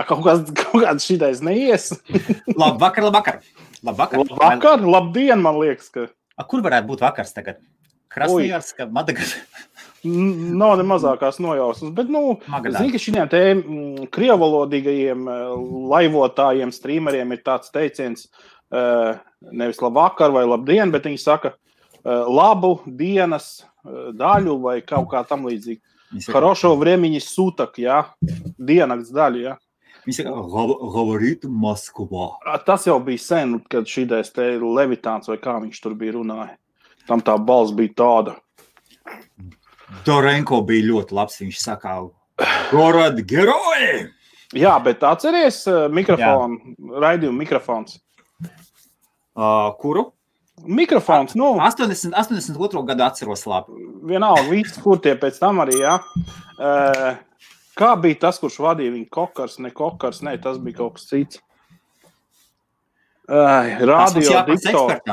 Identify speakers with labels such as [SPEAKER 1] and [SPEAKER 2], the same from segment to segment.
[SPEAKER 1] Kaut kāds šitais neies.
[SPEAKER 2] Labvakar.
[SPEAKER 1] Labdien, man liekas, ka...
[SPEAKER 2] Kur varētu būt vakars tagad? Krasnojarska, Madagaskarā?
[SPEAKER 1] Nav ne mazākās nojausmas, bet, zini, ka šitiem te krievalodīgajiem laivotājiem, streameriem ir tāds teiciens, nevis labvakar vai labdien, bet viņi saka labu dienas daļu vai kaut kā tam līdzīgi. Хорошо времени суток, jā, diennakts daļu, jā.
[SPEAKER 2] Viņi saka, говорит Moskva.
[SPEAKER 1] Tas jau bija sen, kad šitais te Levitāns vai kā viņš tur bija runāja. Tam tā balss bija tāda.
[SPEAKER 2] Dorenko bija ļoti labs, viņš saka, Gorod Geroji!
[SPEAKER 1] Jā, bet atceries mikrofonu, raidījumu mikrofons.
[SPEAKER 2] Kuru?
[SPEAKER 1] Mikrofons,
[SPEAKER 2] 82. gadu atceros labi.
[SPEAKER 1] Vienalga, viss, kur tie pēc tam arī, jā. Kā bija tas, kurš vadīja viņu kokars, tas bija kaut kas cits. Radio diktors.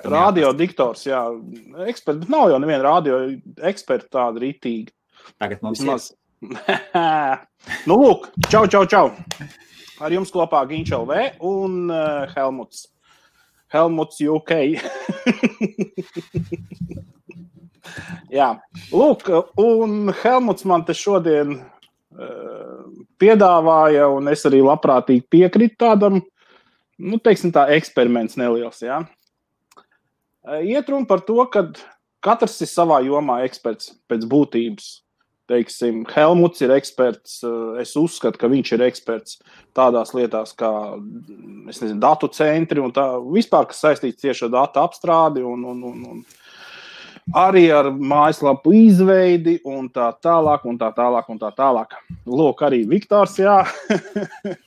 [SPEAKER 1] Radio diktors, jā. Eksperts, bet nav jau neviena radio eksperta tāda ritīga.
[SPEAKER 2] Tagad mums ir.
[SPEAKER 1] Lūk, čau. Ar jums kopā Ginč LV un Helmuts. Helmuts UK. Jā, lūk, un Helmuts man te šodien piedāvāja, un es arī labprātīgi piekritu tādam, teiksim tā, eksperiments neliels, jā. Iet runa par to, ka katrs ir savā jomā eksperts pēc būtības. Teiksim, Helmuts ir eksperts, es uzskatu, ka viņš ir eksperts tādās lietās kā, datu centri un tā, vispār, kas saistīts tieši ar datu apstrādi un arī ar mājaslapu izveidi un tā tālāk. Lūk, arī Viktors, jā.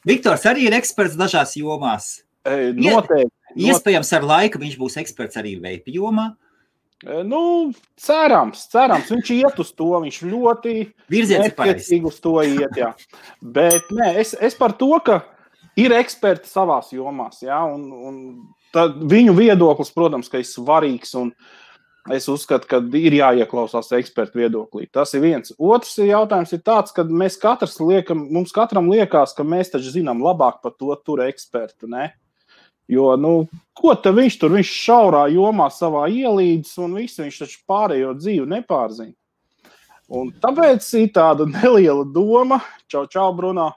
[SPEAKER 2] Viktors arī ir eksperts dažās jomās.
[SPEAKER 1] Noteikti.
[SPEAKER 2] Iespējams, ar laiku viņš būs eksperts arī veipi jomā.
[SPEAKER 1] Cerams, viņš iet uz to, viņš ļoti nepiecīgi uz to iet, jā. Bet, es par to, ka ir eksperti savās jomās, jā, un viņu viedoklis, protams, ka ir svarīgs, un es uzskatu, ka ir jāieklausās ekspertu viedoklī. Tas ir viens. Otrs jautājums ir tāds, ka mums katram liekas, ka mēs taču zinām labāk par to tur ekspertu, ne? Jo, ko te viņš šaurā jomā savā ielīdz un visu, viņš taču pārējo dzīvi nepārzina. Un tāpēc ir tāda neliela doma, čau, Bruno,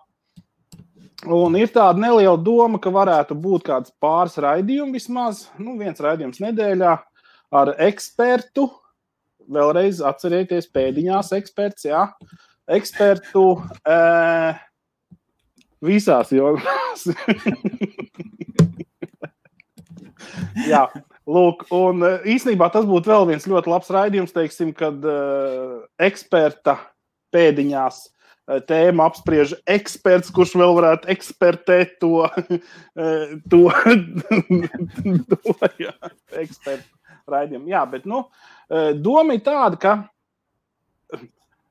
[SPEAKER 1] un ir tāda neliela doma, ka varētu būt kāds pāris raidījumi vismaz, viens raidījums nedēļā ar ekspertu, vēlreiz atcerieties pēdiņās eksperts, jā, ekspertu visās jomās. Jā, lūk, un īstenībā tas būtu vēl viens ļoti labs raidījums, teiksim, kad eksperta pēdiņās tēmu apspriež eksperts, kurš vēl varētu ekspertēt to jā, ekspertu raidījumu. Jā, bet, doma ir tāda, ka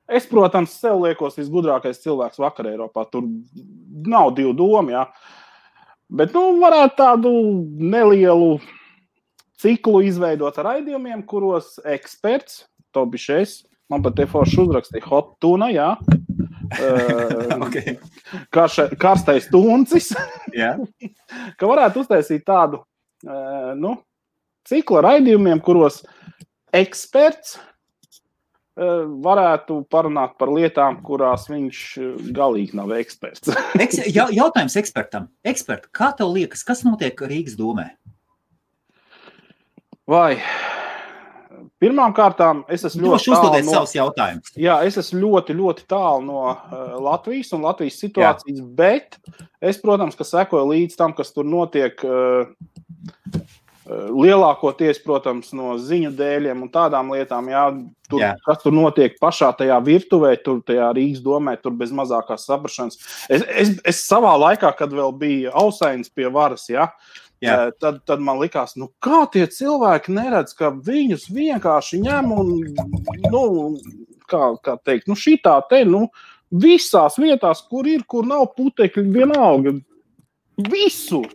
[SPEAKER 1] es, protams, sev liekos visgudrākais cilvēks vakar Eiropā, tur nav divu domu, jā. Bet, varētu tādu nelielu ciklu izveidot ar raidījumiem, kuros eksperts, to bišais, man pat te forši uzrakstīja hot tuna, jā,
[SPEAKER 2] okay.
[SPEAKER 1] Karstais tuncis,
[SPEAKER 2] yeah.
[SPEAKER 1] Ka varētu uztaisīt tādu, ciklu ar raidījumiem, kuros eksperts varētu parunāt par lietām, kurās viņš galīgi nav eksperts.
[SPEAKER 2] Jautājums ekspertam. Ekspert, kā tev liekas, kas notiek Rīgas domē?
[SPEAKER 1] Vai, pirmām kārtām, es esmu ļoti tālu
[SPEAKER 2] savus jautājumus.
[SPEAKER 1] Jā, es esmu ļoti, ļoti tālu no Latvijas un Latvijas situācijas, bet es, protams, ka sekoju līdz tam, kas tur notiek lielākoties, protams, no ziņu dēļiem un tādām lietām, jā, kas tur notiek pašā tajā virtuvē, tur tajā Rīgas domē, tur bez mazākās saprašanas. Es savā laikā, kad vēl bija Ausainis pie varas, jā, tad man likās, kā tie cilvēki neredz, ka viņus vienkārši ņem un, kā teikt, šitā te, visās vietās, kur nav putekļi, vienalga, visur.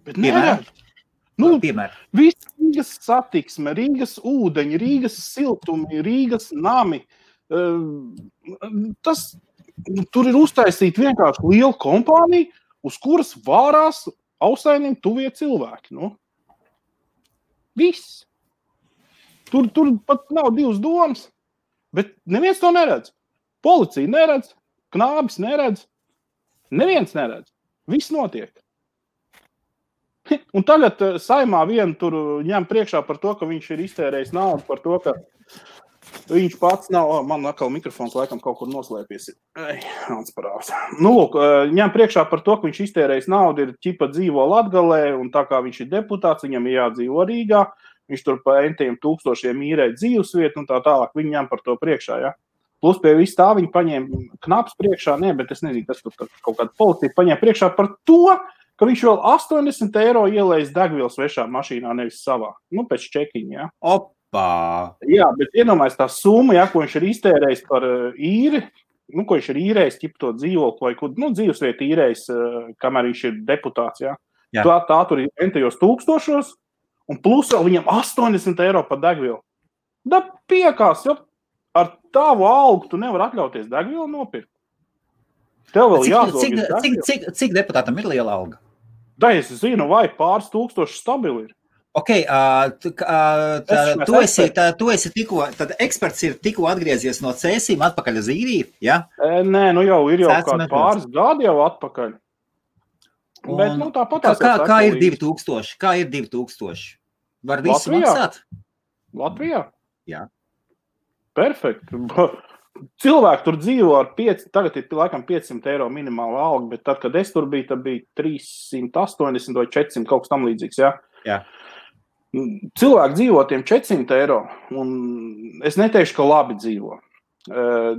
[SPEAKER 1] Bet neredz. Viss Rīgas satiksme, Rīgas ūdeņi, Rīgas siltumi, Rīgas nami. Tas tur ir uztaisīta vienkārši liela kompānija, uz kuras vārās Ausainim tuvie cilvēki. Nu. Viss. Tur pat nav divas domas, bet neviens to neredz. Policija neredz, knābis neredz, neviens neredz. Viss notiek. Un tagad Saimā vienu tur ņem priekšā par to, ka viņš ir iztērējis naudu, par to, ka viņš pats nav, man atkal mikrofons laikam kaut kur noslēpies. Nu, lūk, ņem priekšā par to, ka viņš iztērējis naudu, ir ķipa dzīvo Latgalē, un tā kā viņš ir deputāts, viņam ir jādzīvo Rīgā, viņš tur pa entiem tūkstošiem īrē dzīvesvietu un tā tālāk, viņi ņem par to priekšā, ja. Plus pie visu tā viņi paņēma knaps priekšā, bet es nezinu, kas tur kaut kāda policija paņēma priekšā par to, ka viņš vēl 80 eiro ielējis degvielu svešā mašīnā, nevis savā. Nu, pēc čekiņa, ja.
[SPEAKER 2] Opā!
[SPEAKER 1] Jā, bet iedomājies tā summa, ja, ko viņš ir iztērējis par īri, nu, ko viņš ir īrējis, ķip to dzīvokli vai kur, nu, dzīvesvietu īrējis, kamēr viņš ir deputāts, ja. Jā. Tā tur ir entajos tūkstošos, un plus vēl viņam 80 eiro par degvielu. Da piekās, jo ar tavu algu tu nevar atļauties degvielu nopirkt. Tev vēl jāzog.
[SPEAKER 2] Cik deputātam ir liela alga?
[SPEAKER 1] Da, es zinu, vai pāris tūkstoši stabili ir.
[SPEAKER 2] Ok, tu esi tikko, tad eksperts ir tikko atgriezies no Cēsīm atpakaļ uz Īriju, ja?
[SPEAKER 1] Nē, nu jau ir kādi pāris gadi jau atpakaļ. Bet, nu, tāpatās
[SPEAKER 2] kā ir 2000? Kā ir 2000? Var visu maksāt?
[SPEAKER 1] Latvijā?
[SPEAKER 2] Jā.
[SPEAKER 1] Perfekt. Cilvēki tur dzīvo ar tagad ir laikam 500 eiro minimāla alga, bet tad, kad es tur biju, tad bija 380 vai 400 kaut kas tam līdzīgs, ja?
[SPEAKER 2] Jā.
[SPEAKER 1] Cilvēki dzīvo tiem 400 eiro, un es neteikšu, ka labi dzīvo.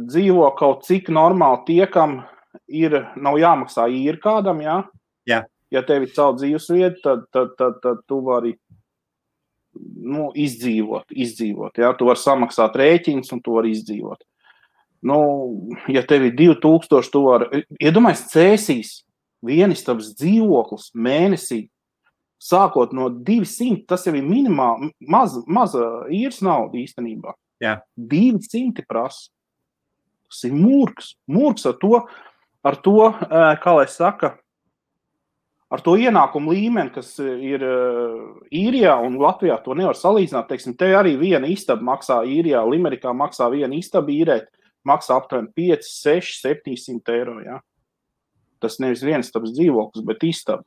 [SPEAKER 1] Dzīvo kaut cik normāli tie, kam nav jāmaksā īri kādam, ja?
[SPEAKER 2] Jā.
[SPEAKER 1] Ja tev ir savu dzīvesvietu, tad tu vari izdzīvot. Ja? Tu vari samaksāt rēķins, un tu vari izdzīvot. Nu, ja tev ir 2000, tu vari, iedomājies Cēsīs, vienistabas dzīvoklis mēnesī, sākot no 200, tas jau ir minimāli, maza īres nauda īstenībā.
[SPEAKER 2] Jā.
[SPEAKER 1] 200 prasa. Tas ir murgs. Murgs ar to, kā lai saka, ar to ienākumu līmeni, kas ir Īrijā un Latvijā, to nevar salīdzināt. Teiksim, te arī viena istaba maksā Īrijā, Limerikā maksā viena istaba īrēt, maksā aptuveni 5, 6, 700 eiro. Ja? Tas nevis vienistabas dzīvoklis, bet istaba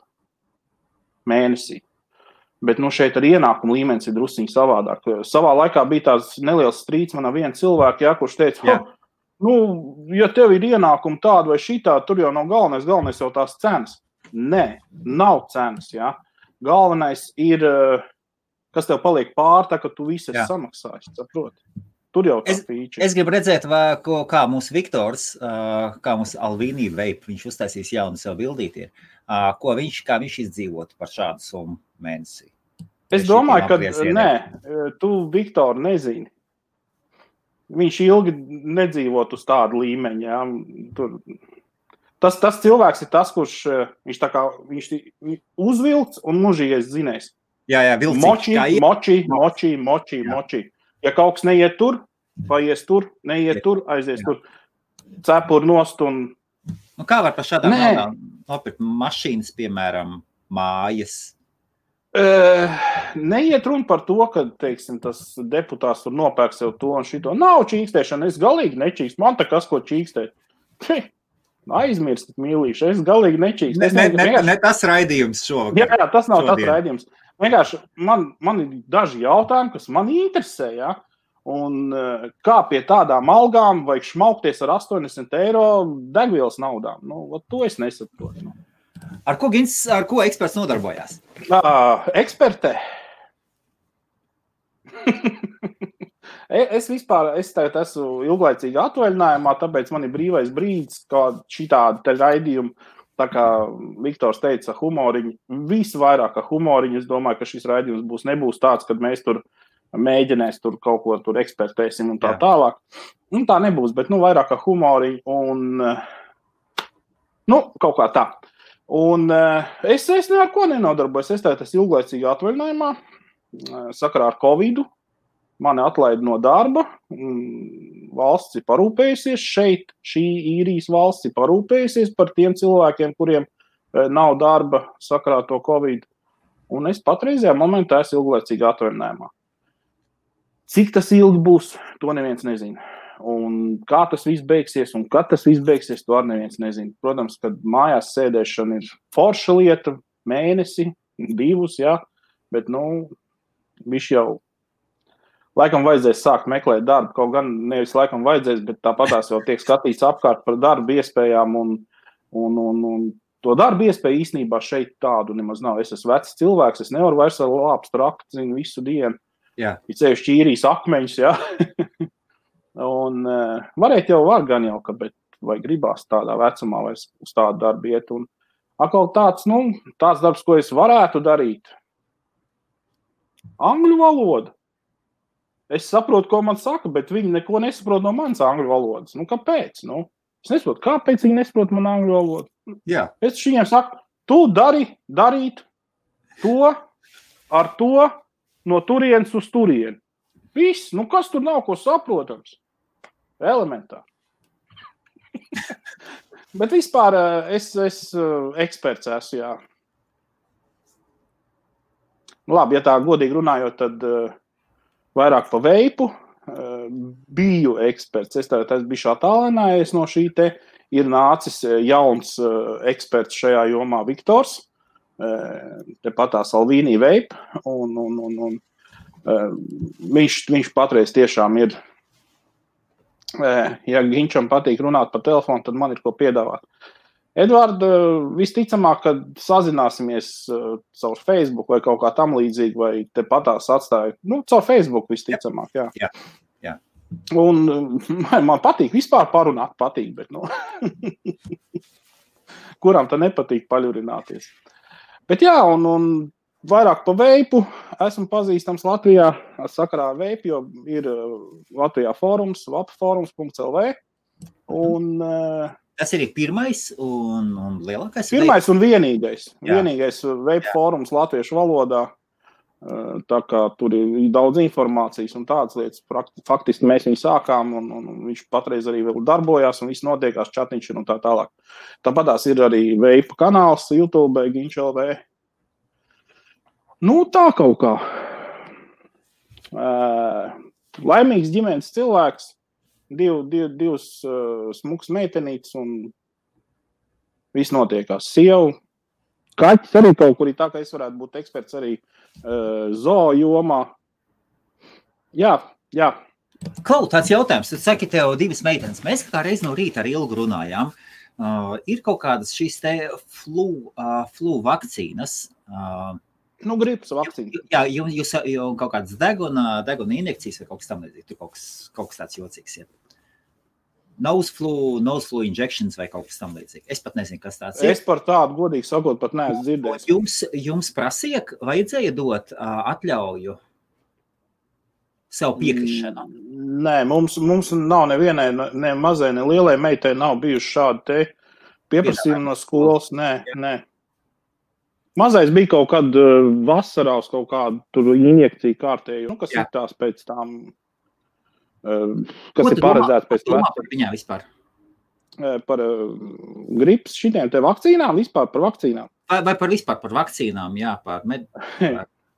[SPEAKER 1] mēnesī. Bet nu, šeit ar ienākumu līmenis ir drusciņi savādāk. Savā laikā bija tās neliels strīds man ar vienu cilvēku, ja, kurš teica, ja tev ir ienākumi tādi vai šitā, tur jau nav galvenais jau tās cenas. Nē, nav cenas, ja. Galvenais ir, kas tev paliek pār, tā, ka tu visi esi samaksājis, saproti. Tur jau tā fīča.
[SPEAKER 2] Es gribu redzēt, kā mūsu Viktors, kā mūsu Alvīnī Veip, viņš uztaisīs jaunu sev bildīti, kā viņš izdzīvotu par šādu summu mēnesī.
[SPEAKER 1] Es domāju, ka nē, tu Viktoru nezini. Viņš ilgi nedzīvot uz tādu līmeņu, ja. Tur. Tas cilvēks ir tas, kurš viņš uzvilks un mužīgais zinēs.
[SPEAKER 2] Jā, vilcīgi.
[SPEAKER 1] Moči. Ja kaut kas neiet tur, paies tur, neiet tur, aizies tur, cepur nost un...
[SPEAKER 2] Nu, kā var par šādām naudām nopirkt mašīnas, piemēram, mājas?
[SPEAKER 1] Neiet runa par to, ka, teiksim, tas deputāts tur nopērk sev to un šito. Nav čīkstēšana, es galīgi nečīkst. Man tā kas, ko čīkstēt. Aizmirstat, mīlīši, es galīgi nečīkst.
[SPEAKER 2] Ne tas raidījums šovakar.
[SPEAKER 1] Jā, tas nav tas raidījums. Vienkārši man ir daži jautājumi, kas man interesē, ja? Un kā pie tādām algām vajag šmaukties ar 80 eiro degvielas naudām. Nu, to es nesaprotu.
[SPEAKER 2] Ar ko eksperts nodarbojās?
[SPEAKER 1] Ekspertē. Es tagad esmu ilglaicīgi atvaļinājumā, tāpēc man ir brīvais brīdis, kā šitādi te raidījumi. Tā kā Viktors teica, humoriņi, visvairāk humoriņi, es domāju, ka šis raidījums nebūs tāds, kad mēs tur mēģinās tur kaut ko tur ekspertēsim un tā tālāk. Un tā nebūs, bet vairāk humoriņi un kaut kā tā. Un es ar ko nenodarbojos, es tagad esmu ilglaicīgi atvaļinājumā, sakarā ar Covidu, mani atlaida no darba, valsts ir parūpējusies šeit, šī īrijas valsts ir parūpējusies par tiem cilvēkiem, kuriem nav darba sakarā to Covid. Un es patreizajā momentā esmu ilglaicīgi atvaļinājumā. Cik tas ilgi būs, to neviens nezina. Un kā tas viss beigsies un kad tas viss beigsies, to arī neviens nezina. Protams, kad mājās sēdēšana ir forša lieta, mēnesi, 2, jā, bet, viņš jau laikam vajadzēs sākt meklēt darbu, kaut gan nevis laikam vajadzēs, bet tāpatās jau tiek skatīts apkārt par darbu iespējām un to darbu iespēju īstenībā šeit tādu nemaz nav. Es esmu vecs cilvēks, es nevaru vairs ar lāpstu trakt, zinu, visu dienu.
[SPEAKER 2] Jā.
[SPEAKER 1] Ir ceļš īrijas akmeņus, jā. Un varēt jau var gan jau, bet vai gribās tādā vecumā vairs uz tādu darbu iet. Un atkal tāds darbs, ko es varētu darīt. Angļu valoda. Es saprotu, ko man saka, bet viņi neko nesaprot no manas angļu valodas. Kāpēc? Es nesaprotu, kāpēc viņi nesaprot man angļu valodu.
[SPEAKER 2] Jā.
[SPEAKER 1] Es viņiem saku, tu darīt to ar to no turienes uz turieni. Viss, kas tur nav, ko saprotams? Elementāri. Bet vispār es eksperts esmu, jā. Labi, ja tā godīgi runājot, tad vairāk pa veipu biju eksperts. Es biju attālinājies no šī te. Ir nācis jauns eksperts šajā jomā Viktors. Tepatās Alvīnī Vape. Un viņš patreiz tiešām ir. Ja Ginčam patīk runāt pa telefonu, tad man ir ko piedāvāt. Edvard, visticamāk, kad sazināsimies caur Facebook vai kaut kā tam līdzīgi, vai tepatās atstāju. Caur Facebook visticamāk, jā.
[SPEAKER 2] Jā.
[SPEAKER 1] Un man patīk vispār parunāt, bet kuram tā nepatīk paļurināties. Bet jā, un vairāk pa veipu esmu pazīstams Latvijā sakarā ar veipu, jo ir Latvijā fórums, vapforums.lv. Un
[SPEAKER 2] tas ir pirmais un lielākais?
[SPEAKER 1] Pirmais un vienīgais. Jā. Vienīgais veipu fórums latviešu valodā. Tā kā tur ir daudz informācijas un tādas lietas. Faktiski mēs viņu sākām un viņš patreiz arī vēl darbojās un viss notiekās, čatiņš un tā tālāk. Tāpatās ir arī veipu kanāls YouTube, Ginč.lv. Tā kaut kā. Laimīgs ģimenes cilvēks, divas smuks meitenītes un viss notiekās. Sievu, kaķis arī kaut kur, tā kā es varētu būt eksperts arī zoo jomā. Jā.
[SPEAKER 2] Klau, tāds jautājums. Tu saki, tev 2 meitenes. Mēs kā reiz no rīta ar Ilgu runājām. Ir kaut kādas šīs te flu vakcīnas.
[SPEAKER 1] Gripas vakcīna.
[SPEAKER 2] Jā, jūs jau kaut kādas deguna injekcijas vai kaut kas tam līdzīgs. Tur kaut kas tāds jocīgs ir. Nose flu injections vai kaut kas tam līdzīgi. Es pat nezinu, kas tāds ir.
[SPEAKER 1] Es par tādu, godīgi sakot, pat neesmu dzirdējis.
[SPEAKER 2] Jums vajadzēja dot atļauju sev piekrišanu?
[SPEAKER 1] Nē, mums nav nevienai, ne mazai, ne lielai meitai nav bijuši šādi te pieprasījumi no skolas. Nē. Mazais bija kaut kad vasarā uz kaut kādu tur injekciju kārtēju, kas ir tās pēc tām, kas ir paredzēts pēc
[SPEAKER 2] vecuma. Par viņā vispār?
[SPEAKER 1] Par gripas šitiem te vakcīnām, vispār par vakcīnām.
[SPEAKER 2] Vai vispār par vakcīnām, jā, par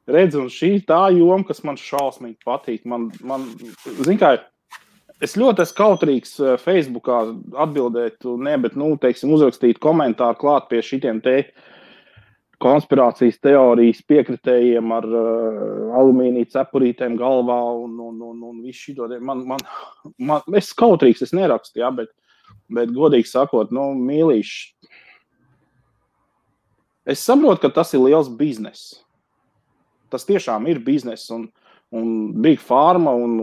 [SPEAKER 1] Redz, un šī tā joma, kas man šausmīgi patīk. Man zin kā, es ļoti esmu kautrīgs Facebookā atbildēt, bet, teiksim, uzrakstīt komentāru klāt pie šitiem te konspirācijas teorijas piekritējiem ar alumīnija cepurītēm galvā un visu šito. Es kautrīgs, es nerakstu, jā, bet godīgi sakot, mīlīši. Es saprotu, ka tas ir liels biznes. Tas tiešām ir biznes un Big Pharma un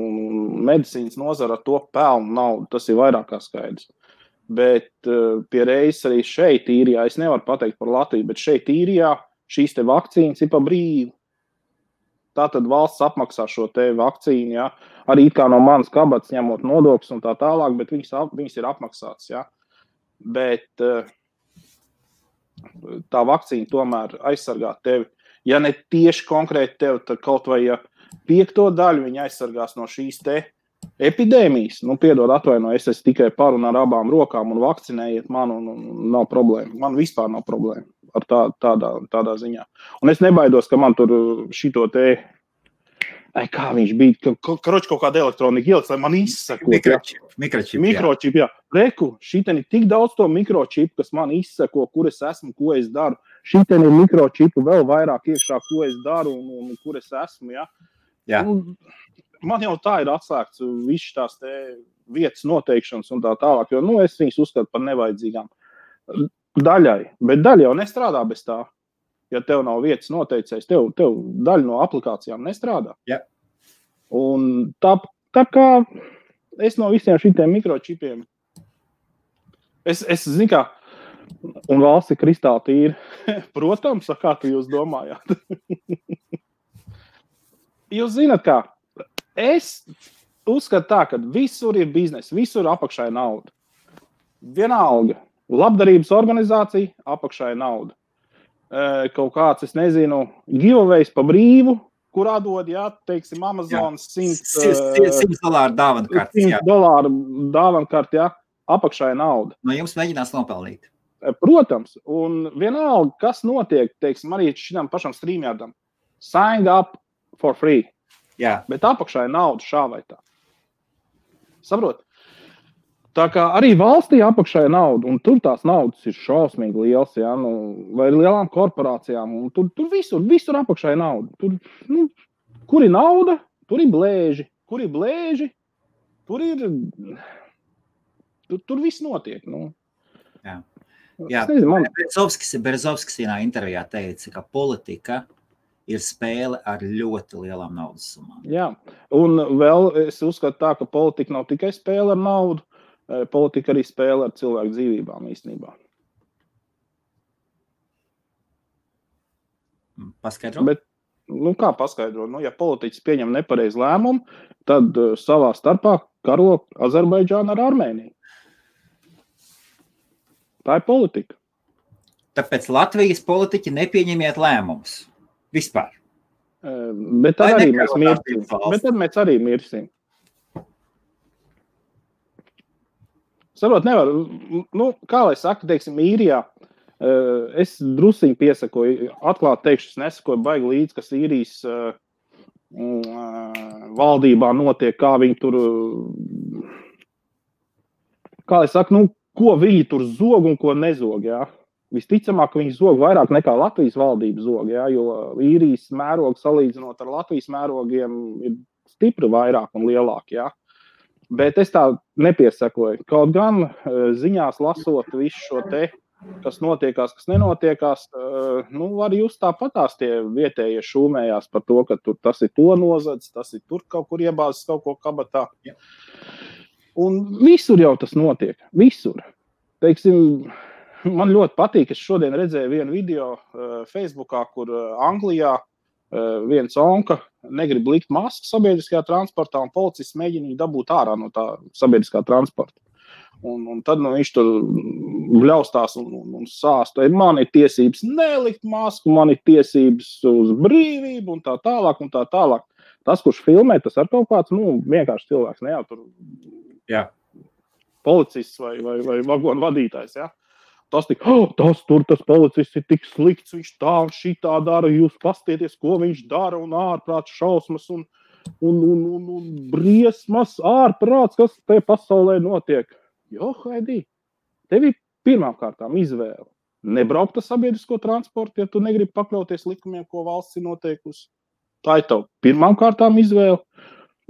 [SPEAKER 1] medicīnas nozara ar to pelnu naudu. Tas ir vairāk kā skaidrs. Bet pie reizes arī šeit īrijā, es nevaru pateikt par Latviju, bet šeit īrijā šīs te vakcīnas ir pa brīvu. Tātad valsts apmaksā šo te vakcīnu, jā. Arī kā no manas kabatas ņemot nodokļus un tā tālāk, bet viņas ir apmaksātas, jā. Bet tā vakcīna tomēr aizsargā tevi. Ja ne tieši konkrēti tevi, tad kaut vai 5. daļu viņa aizsargās no šīs te epidēmijas, piedod atvainoju, es esmu tikai par un ar abām rokām un vakcinējiet man un nav problēma. Man vispār nav problēma ar tādā ziņā. Un es nebaidos, ka man tur šito te, kā viņš bija, karoči kaut kāda elektronika ieliks, lai man izsakot. Mikročip, jā. Reku, šitien ir tik daudz to mikročipu, kas man izsako, kur es esmu, ko es daru. Šitien ir mikročipu vēl vairāk iekšā, ko es daru un kur es esmu, jā.
[SPEAKER 2] Jā.
[SPEAKER 1] Man jau tā ir atslēgts viss tās te vietas noteikšanas un tā tālāk, jo, es viņus uzskatu par nevajadzīgām daļai, bet daļa jau nestrādā bez tā. Ja tev nav vietas noteicējis, tev daļa no aplikācijām nestrādā.
[SPEAKER 2] Jā.
[SPEAKER 1] Un tā kā es no visiem šitiem mikročipiem, es zinu, kā, un valsts ir kristāli tīra. Protams, kā tu jūs domājāt? Jūs zināt, kā? Es uzskatu tā, ka visur ir biznes, visur apakšā ir nauda. Vienalga. Labdarības organizācija, apakšā ir nauda. Kaut kāds, es nezinu, giveaways pa brīvu, kurā dod, teiksim, Amazonas
[SPEAKER 2] $100 dāvankartes.
[SPEAKER 1] $100 dāvankartes, apakšā ir nauda.
[SPEAKER 2] No jums mēģinās nopelnīt.
[SPEAKER 1] Protams, un vienalga, kas notiek, teiksim, arī šitam pašam streamjardam. Sign up for free.
[SPEAKER 2] Jā. Bet
[SPEAKER 1] apakšā ir nauda šā vai tā. Saprot? Tā kā arī valstī apakšā ir nauda, un tur tās naudas ir šausmīgi liels, vai lielām korporācijām, un tur visur apakšā ir nauda. Tur, kur ir nauda, tur ir blēži. Kur ir blēži, tur viss notiek.
[SPEAKER 2] Jā. Nezinu, Berezovskis vienā intervijā teica, ka politika ir spēle ar ļoti lielām naudas summām.
[SPEAKER 1] Jā, un vēl es uzskatu tā, ka politika nav tikai spēle ar naudu, politika arī spēle ar cilvēku dzīvībām īstenībā.
[SPEAKER 2] Paskaidro?
[SPEAKER 1] Bet, kā paskaidro? Ja politiķis pieņem nepareizu lēmumu, tad savā starpā karo Azerbaidžānu ar Armēniju. Tā ir politika.
[SPEAKER 2] Tāpēc Latvijas politiķi nepieņemiet lēmumus. Vispār.
[SPEAKER 1] Bet tad arī mēs mirsim. Bet tad mēs arī mirsim. Sarot, nevar. Kā lai saka, teiksim, īrijā, es drusiņi piesakoju, atklāt teikšu, es nesakoju baigi līdz, kas īrijas valdībā notiek, kā viņi tur, kā lai saka, ko viņi tur zog un ko nezog, jā. Visticamāk, ka viņi zog vairāk nekā Latvijas valdība zog, jo īrijas mērogi salīdzinot ar Latvijas mērogiem ir stipri vairāk un lielāk, Bet es tā nepiesakoju. Kaut gan ziņās lasot visu šo te, kas notiekās, kas nenotiekās, var jūs tāpatās tie vietējie šūmējās par to, ka tur tas ir to nozadz, tas ir tur kaut kur iebāzes kaut ko kabatā. Jā. Un visur jau tas notiek. Visur. Teiksim, man ļoti patīk, es šodien redzēju vienu video Facebookā, kur Anglijā viens onka negrib likt masku sabiedriskajā transportā, un policists mēģina viņu dabūt ārā no tā sabiedriskā transporta. Un tad viņš tur bļaustās un sāsta, man ir tiesības nelikt masku, man ir tiesības uz brīvību un tā tālāk un tā tālāk. Tas, kurš filmē, tas ar kaut kāds, vienkārši cilvēks, ne jau tur policists vai vagonu vadītājs, Tas tas policists ir tik slikts, viņš tā un šitā dara, jūs pastieties, ko viņš dara, un ārprāts šausmas, un briesmas, ārprāts, kas te pasaulē notiek. Haidī, tev ir pirmām kārtām izvēle. Nebraukt ar sabiedrisko transportu, ja tu negribi pakļauties likumiem, ko valsts ir noteikusi. Tā ir tev pirmām kārtām izvēle.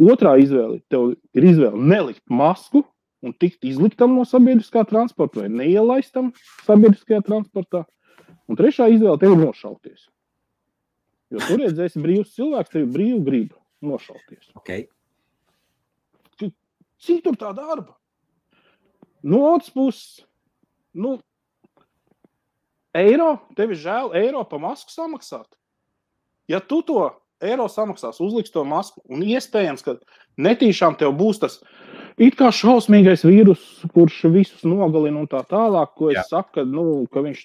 [SPEAKER 1] Otrā izvēle, tev ir izvēle nelikt masku, un tikt izliktam no sabiedriskā transporta vai neielaistam sabiedriskajā transportā. Un trešā izvēle tev ir nošauties. Jo tu redzēsi brīvs cilvēks, tev ir brīvu gribu nošauties.
[SPEAKER 2] Okay.
[SPEAKER 1] Cik tur tā darba? No otras puses, eiro, tev ir žēl eiro pa masku samaksāt. Ja tu to eiro samaksās, uzliks to masku, un iespējams, ka netīšām tev būs tas It kā šausmīgais vīrus, kurš visus nogalina un tā tālāk, ko es saku, ka viņš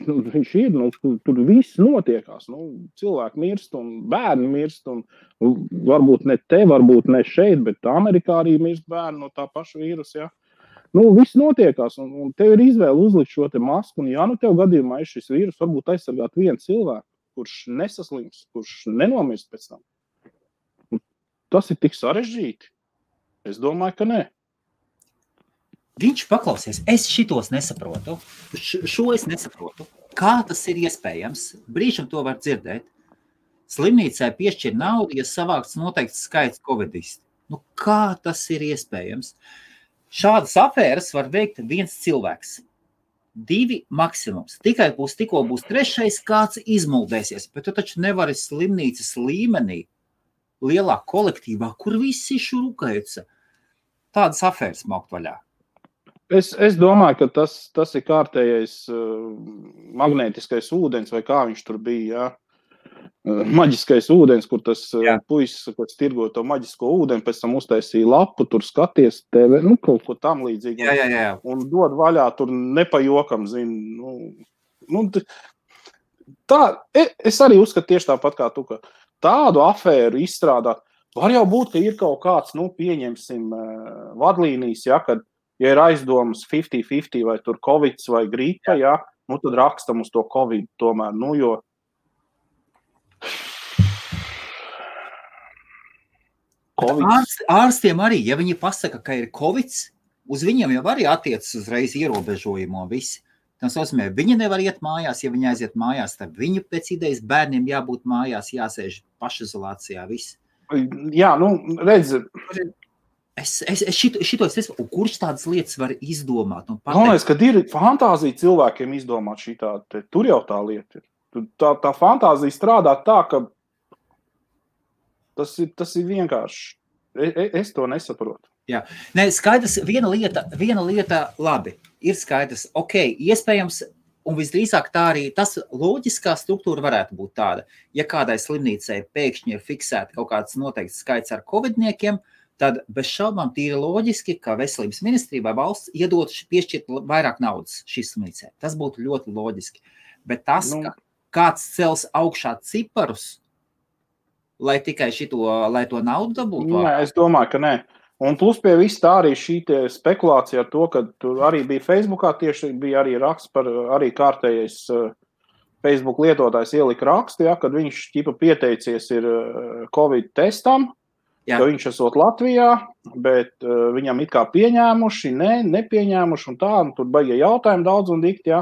[SPEAKER 1] ir, tur viss notiekās. Cilvēki mirst un bērni mirst, un varbūt ne te, varbūt ne šeit, bet Amerikā arī mirst bērni no tā paša vīrusa, ja. Viss notiekās, un tev ir izvēle uzlikt šo te masku, un ja tev gadījumā ir šis vīrus, varbūt aizsargāt vienu cilvēku, kurš nesaslims, kurš nenomirst pēc tam. Tas ir tik sarežģīti. Es domāju, ka nē.
[SPEAKER 2] Viņš paklausies, es šitos nesaprotu, šo es nesaprotu. Kā tas ir iespējams? Brīžam to var dzirdēt. Slimnīcai piešķir naudu, ja savāks noteikts skaits covidisti. Kā tas ir iespējams? Šādas afēras var veikt viens cilvēks. 2 maksimums. Tikko būs 3, kāds izmuldēsies, bet tu taču nevari slimnīcas līmenī, lielā kolektīvā, kur visi šurukaica, tādas afēras maukt vaļā.
[SPEAKER 1] Es domāju, ka tas ir kārtējais magnētiskais ūdens, vai kā viņš tur bija, maģiskais ūdens, kur tas puisis, kas tirgo to maģisko ūdeni, pēc tam uztaisīja lapu, tur skaties TV, kaut ko tam līdzīgi.
[SPEAKER 2] Jā.
[SPEAKER 1] Un dod vaļā, tur nepajokam, tā, es arī uzskatu tieši tāpat kā tu, ka tādu afēru izstrādāt, var jau būt, ka ir kaut kāds, pieņemsim, vadlīnijas, kad, ja ir aizdomas 50-50 vai tur Covid vai gripa, tad rakstam uz to Covid tomēr, jo
[SPEAKER 2] Ārstiem arī, ja viņi pasaka, ka ir Covid, uz viņiem jau arī attiecas uzreiz ierobežojumu visi. Tas nozīmē, viņi nevar iet mājās, ja viņi aiziet mājās, tad viņu pēc idejas bērniem jābūt mājās, jāsēž pašizolācijā, viss.
[SPEAKER 1] Jā, redz.
[SPEAKER 2] Kurš tādas lietas var izdomāt?
[SPEAKER 1] Galvenais, kad ir fantāzija cilvēkiem izdomāt šitā, tur jau tā lieta ir. Tā fantāzija strādā tā, ka tas ir vienkārši. Es to nesaprotu.
[SPEAKER 2] Jā. Nē, skaidrs, viena lieta labi, ir skaidrs, iespējams, un visdrīzāk tā arī, tas loģiskā struktūra varētu būt tāda, ja kādai slimnīcai pēkšņi ir fiksēta kaut kāds noteikts skaits ar covidniekiem, tad bez šaubām tīri loģiski, ka veselības ministrija vai valsts iedot piešķirt vairāk naudas šīs slimnīcai. Tas būtu ļoti loģiski. Bet tas, ka kāds cels augšā ciparus, lai tikai lai to naudu dabūtu?
[SPEAKER 1] Nē, es domāju, ka nē. Un plus pie viss tā arī šī spekulācija ar to, ka tur arī bija Facebookā, tieši bija arī raksts par arī kārtējais Facebook lietotājs ielika rakstu, kad viņš pieteicies ir Covid testam, ka viņš esot Latvijā, bet viņam it kā pieņēmuši, nepieņēmuši un tā, un tur baigie jautājumi daudz un dikti,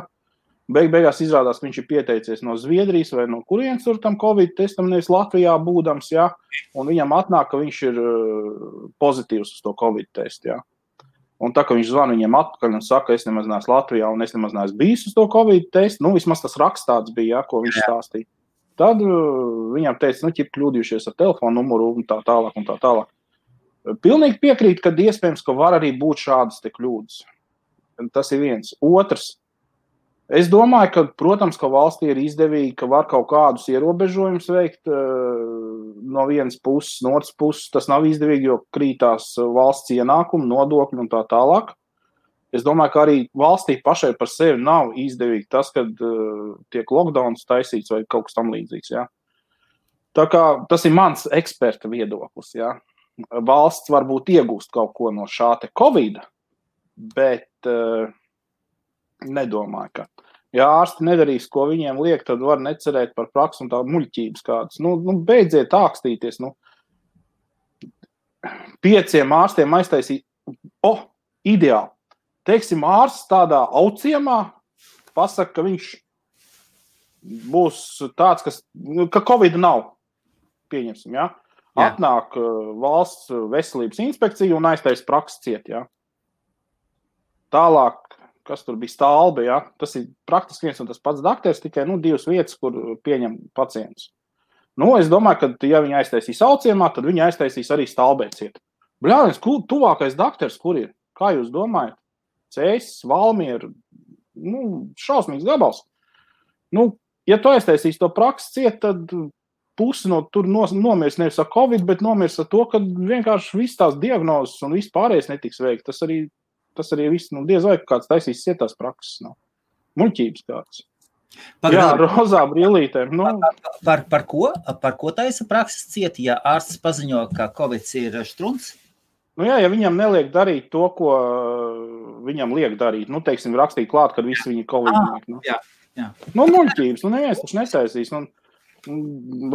[SPEAKER 1] Beigās izrādās, ka viņš ir pieteicies no Zviedrijas vai no kurienes tur tam Covid testam, nevis Latvijā būdams, un viņam atnāk, ka viņš ir pozitīvs uz to Covid testu, Un tā, ka viņš zvana viņiem atpakaļ un saka, es nemaz neesmu Latvijā un es nemaz neesmu bijis uz to Covid testu, vismaz tas raksts tāds bija, ko viņš stāstīja. Tad viņam teica, kļūdījušies ar telefonu numuru un tā tālāk un tā tālāk. Pilnīgi piekrīt, ka iespējams, ka var arī būt šādas te kļūdas. Tas ir viens. Otrs. Es domāju, ka, protams, ka valstī ir izdevīgi, ka var kaut kādus ierobežojumus veikt no vienas puses, no otras puses. Tas nav izdevīgi, jo krītās valsts ienākumi, nodokļi un tā tālāk. Es domāju, ka arī valstī pašai par sevi nav izdevīgi tas, kad tiek lockdowns taisīts vai kaut kas tam līdzīgs. Tā kā tas ir mans eksperta viedoklis. Valsts varbūt iegūst kaut ko no šā te Covid, bet nedomāju, ka. Ja ārsti nedarīs, ko viņiem liek, tad var necerēt par praksu un tādu muļķības kādas. Beidziet ākstīties. 5 ārstiem aiztaisīt. Ideāli. Teiksim, ārsts tādā auciemā pasaka, ka viņš būs tāds, ka Covid nav. Pieņemsim, Atnāk valsts veselības inspekcija un aiztais prakses ciet, Tālāk, kas tur bija Stalbe, tas ir praktiski viens un tas pats dakters, tikai 2 vietas, kur pieņem pacientus. Es domāju, ka ja viņi aiztaisīs auciemā, tad viņi aiztaisīs arī Stalbē ciet. Bļāviens, tuvākais dakters, kur ir? Kā jūs domājat? Cēsis, Valmiera, šausmīgs gabals. Ja tu aiztaisīs to prakses ciet, tad pusi no tur nomirs nevis ar Covid, bet nomirs ar to, ka vienkārši viss tās diagnozes un viss pārējais netiks veikt. Tas arī viss, diez vai kāds taisīs cietās prakses. Muļķības kāds. Jā, rozā brīlītēm.
[SPEAKER 2] Par ko taisa prakses ciet, ja ārsts paziņo, ka Covid ir štruns?
[SPEAKER 1] Ja viņam neliek darīt to, ko viņam liek darīt. Teiksim, rakstīt klāt, kad visi viņi Covid.
[SPEAKER 2] Jā.
[SPEAKER 1] Muļķības. Neviens taču netaisīs.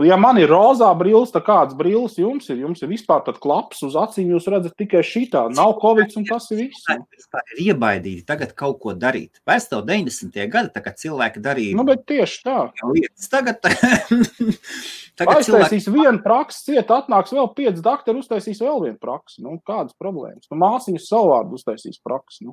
[SPEAKER 1] Ja man ir rozā brilles, tad kāds brilles jums ir? Jums ir vispār tad klaps uz acīm, jūs redzat tikai šitā. Nav Covid un tas ir viss.
[SPEAKER 2] Vispār ir iebaidīti tagad kaut ko darīt. Vairs tev 90. gadi, kad cilvēki darīja.
[SPEAKER 1] Bet tieši tā.
[SPEAKER 2] Tagad
[SPEAKER 1] aiztaisīs vienu praksi, ciet atnāks vēl 5 doktori, uztaisīs vēl vienu praksi. Kādas problēmas? Māsiņas savvārdu uztaisīs praksi.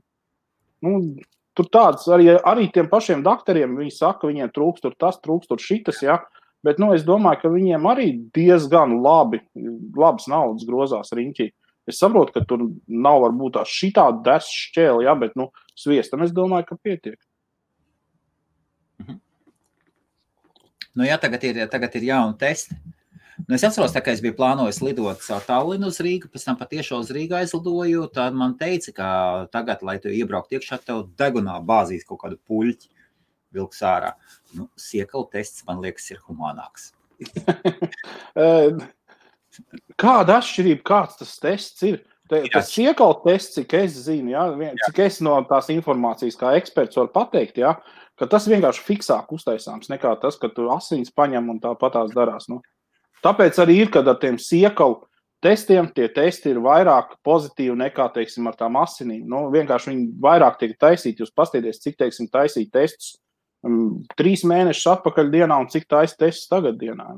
[SPEAKER 1] Tur tāds, arī tiem pašiem doktoriem, viņi saka, viņiem trūkst tur tas, trūkst tur šitas, jā. Bet, es domāju, ka viņiem arī diezgan labas naudas grozās riņķī. Es saprotu, ka tur nav varbūt tā šitā des šķēli, jā, bet, sviestam es domāju, ka pietiek.
[SPEAKER 2] Tagad ir jauni testi. Es atceros, tā kā es biju plānojis lidot caur Tallinu uz Rīgu, pēc tam patiešo uz Rīgu aizlidoju, tad man teica, ka tagad, lai tu iebraukt iekšā, tev degunā bāzīs kaut kādu puļķi vilks ārā. Siekalu tests, man liekas, ir humānāks.
[SPEAKER 1] Kāda atšķirība, kāds tas tests ir? Tas siekalu tests, cik es zinu, jā, cik es no tās informācijas kā eksperts varu pateikt, jā, ka tas vienkārši fiksāk uztaisāms nekā tas, ka tu asins paņem un tāpatās darās. Tāpēc arī ir, kad ar tiem siekalu testiem, tie testi ir vairāk pozitīvi nekā, teiksim, ar tām asinīm. Vienkārši viņi vairāk tiek taisīti. Jūs paskatīties, cik, teiksim, taisīt testus 3 mēnešus atpakaļ dienā un cik taisa testus tagad dienā.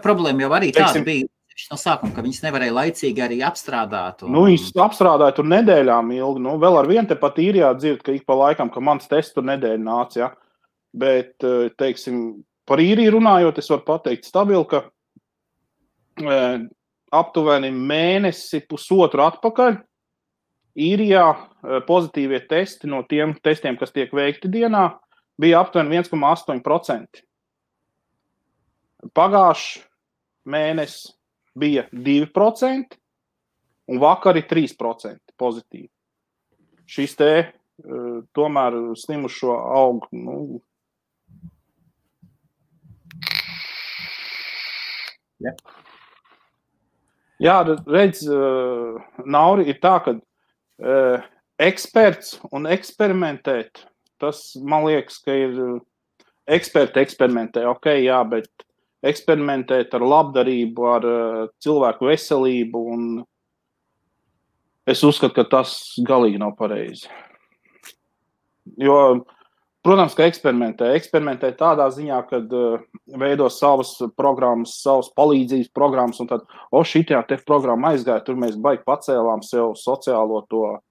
[SPEAKER 2] Problēma jau arī tāda bija no sākuma, ka viņas nevarēja laicīgi arī apstrādāt.
[SPEAKER 1] Viņas apstrādāja tur nedēļām ilgi. Vēl ar vienu te pat īrijā dzird, ka ik pa laikam, ka mans tests tur nedēļa nāca, ja. Bet, teiksim, par īriju runājot, es varu pateikt stabili, ka aptuveni mēnesi pusotru atpakaļ īrijā pozitīvie testi no tiem testiem, kas tiek veikti dienā, bija aptuveni 1,8%. Pagājuši mēnesi bija 2% un vakar ir 3% pozitīvi. Šis te tomēr slimušo aug, Jā, redz, Nauri, ir tā, ka eksperts un eksperimentēt, tas, man liekas, ka ir eksperti eksperimentē, jā, bet eksperimentēt ar labdarību, ar cilvēku veselību, un es uzskatu, ka tas galīgi nav pareizi. Jo, protams, ka eksperimentē tādā ziņā, kad veido savas programmas, savas palīdzības programmas, un tad, šitajā te programma aizgāja, tur mēs baigi pacēlām sev sociālo to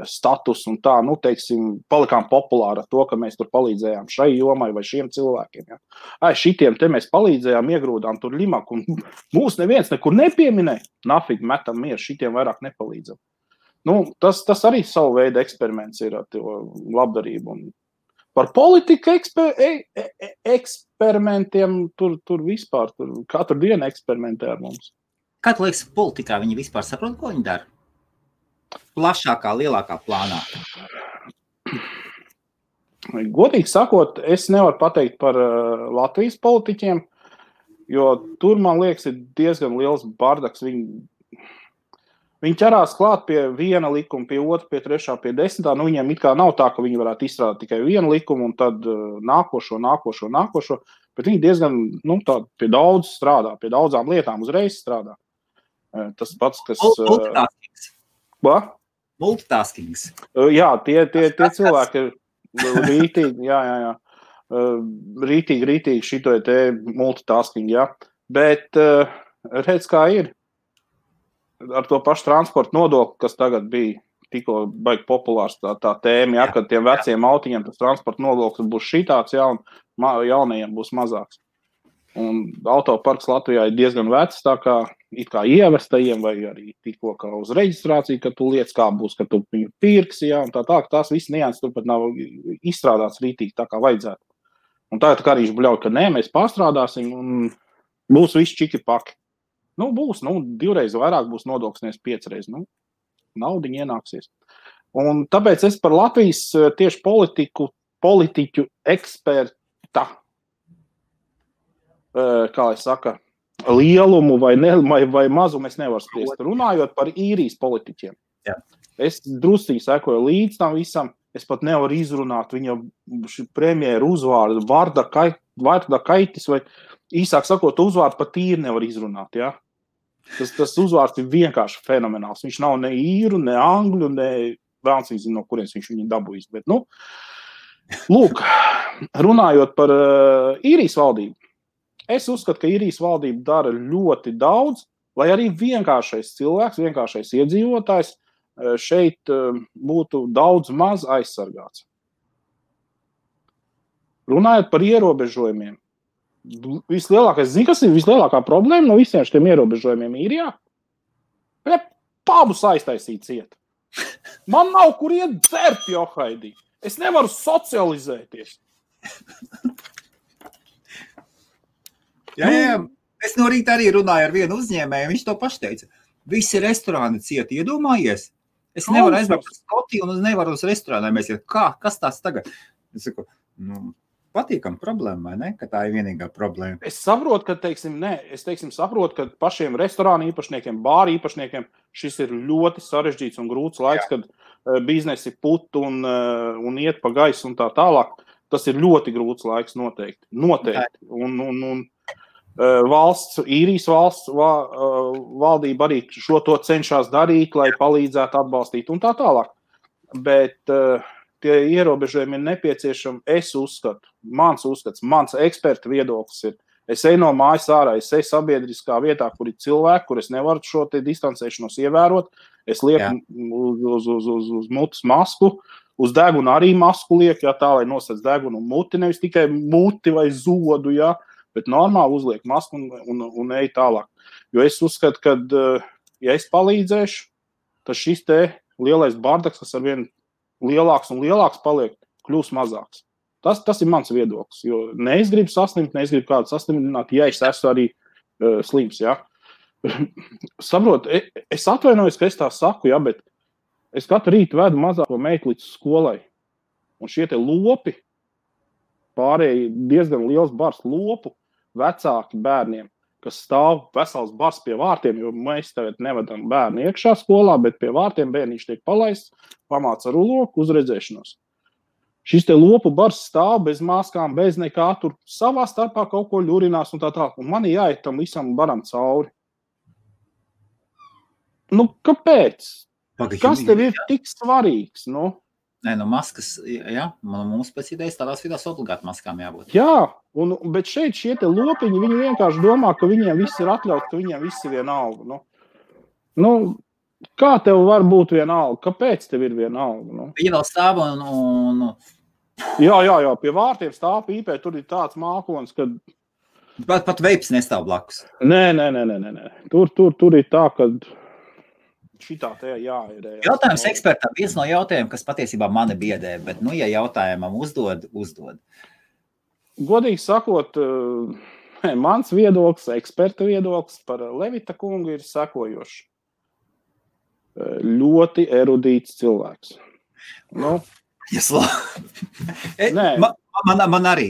[SPEAKER 1] status un tā, teiksim, palikām populāri ar to, ka mēs tur palīdzējām šai jomai vai šiem cilvēkiem. Ja. Šitiem te mēs palīdzējām, iegrūdām tur limaku, un mūs neviens nekur nepieminēja. Nafīgi metam mieru, šitiem vairāk nepalīdzam. Tas arī savu veidu eksperiments ir ar labdarību. Un par politiku eksperimentiem tur vispār, katru dienu eksperimentē ar mums.
[SPEAKER 2] Kā tu liekas, politikā viņi vispār saprot, ko viņi dara? Plašākā, lielākā plānā?
[SPEAKER 1] Godīgi sakot, es nevaru pateikt par Latvijas politiķiem, jo tur, man liekas, ir diezgan liels bardaks. Viņi ķerās klāt pie viena likuma, pie otra, pie trešā, pie 10. Viņiem it kā nav tā, ka viņi varētu izstrādāt tikai vienu likumu un tad nākošo, bet viņi diezgan, pie daudz strādā, pie daudzām lietām uzreiz strādā. Tas pats, kas...
[SPEAKER 2] Multitaskings.
[SPEAKER 1] Jā, tie cilvēki ir rītīgi, rītīgi šito te multitasking, jā. Bet redz, kā ir. Ar to pašu transporta nodokli, kas tagad bija tikko baigi populārs tā tēma, jā, kad tiem veciem autiņiem tas transporta nodoklis būs šitāds, jā, un jaunajiem būs mazāks. Un autoparks Latvijā ir diezgan vecs, tā kā it kā ievestajiem vai arī tikko kā uz reģistrāciju, ka tu lietas kā būs, ka tu viņu pirksi, jā, un tā, ka tās visas nianses turpat nav izstrādāts rītīgi tā kā vajadzētu. Un tagad kā viņš bļauj, ka nē, mēs pārstrādāsim un būs viss čiki paki. Nu, būs, 2 reizes vairāk būs nodoklis, 5 reizes. Nu, naudiņa ienāksies. Un tāpēc es par Latvijas tieši politiķu eksperta, kā lai saka, lielumu vai mazumu es nevaru spriest. Runājot par īrijas politiķiem.
[SPEAKER 2] Jā.
[SPEAKER 1] Es drusīgi sekoju līdz tam visam. Es pat nevaru izrunāt viņa premjeru uzvārdu, Varda Kaitis, vai īsāk sakot, uzvārdu pat īri nevar izrunāt. Ja? Tas uzvārds ir vienkārši fenomenāls. Viņš nav ne īru, ne angļu, ne vēlns viņš zina, no kurienes viņš viņu dabūjis. Bet, lūk, runājot par īrijas valdību, es uzskatu, ka īrijas valdība dara ļoti daudz, lai arī vienkāršais cilvēks, vienkāršais iedzīvotājs šeit būtu daudz maz aizsargāts. Runājot par ierobežojumiem, kas ir vislielākā problēma no visiem šiem ierobežojumiem īrijā? Pabus aiztaisīt ciet. Man nav kur iet dzert, Johaidī. Es nevaru socializēties.
[SPEAKER 2] Jā. Es no rīta arī runāju ar vienu uzņēmēju, viņš to paši teica. Visi restorāni cieti, iedomājies? Es nevaru aizbraukt uz Skotiju un es nevaru uz restorānā. Mēs jau, kas tās tagad? Es saku, patīkam problēma, vai ne? Ka tā ir vienīgā problēma.
[SPEAKER 1] Es saprotu, ka, saprotu, ka pašiem restorānu īpašniekiem, bāru īpašniekiem šis ir ļoti sarežģīts un grūts laiks, kad biznesi put un iet pa gaisu un tā tālāk. Tas ir ļoti grūts laiks noteikti. Un īrijas valsts valdība arī šo to cenšas darīt, lai palīdzētu atbalstīt un tā tālāk. Bet tie ierobežojumi ir nepieciešami, es uzskatu, mans eksperta viedoklis ir, es eju no mājas ārā, es eju sabiedriskā vietā, kur ir cilvēki, kur es nevaru šo te distancēšanos ievērot, es lieku uz mutes masku, uz degunu arī masku lieku, tā, lai nosēc degunu un muti, nevis tikai muti vai zodu, bet normāli uzliek masku un ej tālāk. Jo es uzskatu, ka, ja es palīdzēšu, tad šis te lielais bardaks, kas arvien lielāks un lielāks paliek, kļūs mazāks. Tas ir mans viedoklis, jo ne es gribu saslimt, ne es gribu kādu saslimtināt, ja es esmu arī slims, Saprot, es atvainojos, ka es tā saku, bet es katru rītu vedu mazāko meitu līdz skolai. Un šie te lopi, pārējie diezgan liels bars lopu, vecāki bērniem, kas stāv vesels bars pie vārtiem, jo mēs tagad nevedam bērnu iekšā skolā, bet pie vārtiem bērniņš tiek palaists, pamāca ruloku uz redzēšanos. Šis te lopu bars stāv bez maskām, bez nekā, tur savā starpā kaut ko ļurinās un tā tālāk. Un man jāiet tam visam baram cauri. Kāpēc? Kas tev ir tik svarīgs?
[SPEAKER 2] Nē, maskas, mums pēc idejas tādās vidās obligāti maskām jābūt.
[SPEAKER 1] Jā, bet šeit šie te lopiņi, viņi vienkārši domā, ka viņiem viss ir atļauts, ka viņiem viss ir vienalga. Kā tev var būt vienalga? Kāpēc tev ir vienalga?
[SPEAKER 2] Viņa vēl stāv un...
[SPEAKER 1] Jā, pie vārtiem stāv pīpē, tur ir tāds mākonis, kad...
[SPEAKER 2] Pat veips nestāv blakus.
[SPEAKER 1] Nē. Tur ir tā, kad... Šitā te ir.
[SPEAKER 2] Jautājums ekspertam. Viens no jautājumiem, kas patiesībā mani biedē, bet, ja jautājumam uzdod.
[SPEAKER 1] Godīgi sakot, mans viedoklis, eksperta viedoklis par Levita kungu ir sekojošs. Ļoti erudīts cilvēks.
[SPEAKER 2] Man arī.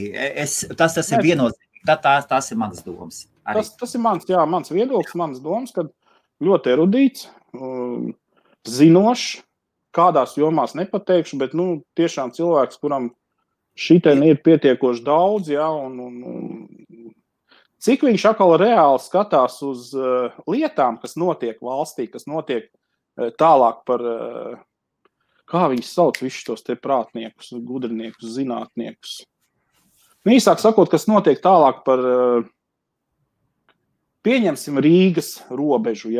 [SPEAKER 2] Tas ir viennozīmīgi. Tas ir manas domas.
[SPEAKER 1] Tas ir mans viedoklis, manas domas, kad ļoti erudīts, zinošs, kādās jomās nepateikšu, bet tiešām cilvēks, kuram šitien ir pietiekoši daudz, un cik viņš atkal reāli skatās uz lietām, kas notiek valstī, kas notiek tālāk par, kā viņi sauc visus tos te prātniekus, gudrniekus, zinātniekus. Īsāk sakot, kas notiek tālāk par, pieņemsim Rīgas robežu,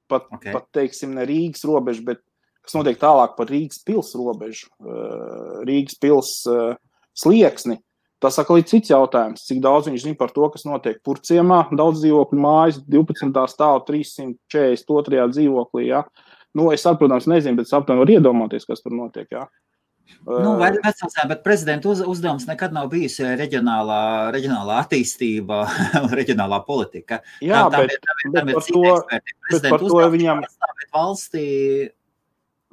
[SPEAKER 1] pat teiksim ne Rīgas robežu, bet kas notiek tālāk par Rīgas pils robežu, Rīgas pils slieksni. Tas atkal ir cits jautājums, cik daudz viņš zina par to, kas notiek Purciemā, daudz dzīvokļu mājas, 12. stāva 342. dzīvoklī, Es, protams, nezinu, bet saptam var iedomāties, kas tur notiek,
[SPEAKER 2] Vai vecāsā, bet prezidenta uzdevums nekad nav bijis reģionālā attīstība, reģionālā politika.
[SPEAKER 1] Jā, bet par to viņam...
[SPEAKER 2] valstī...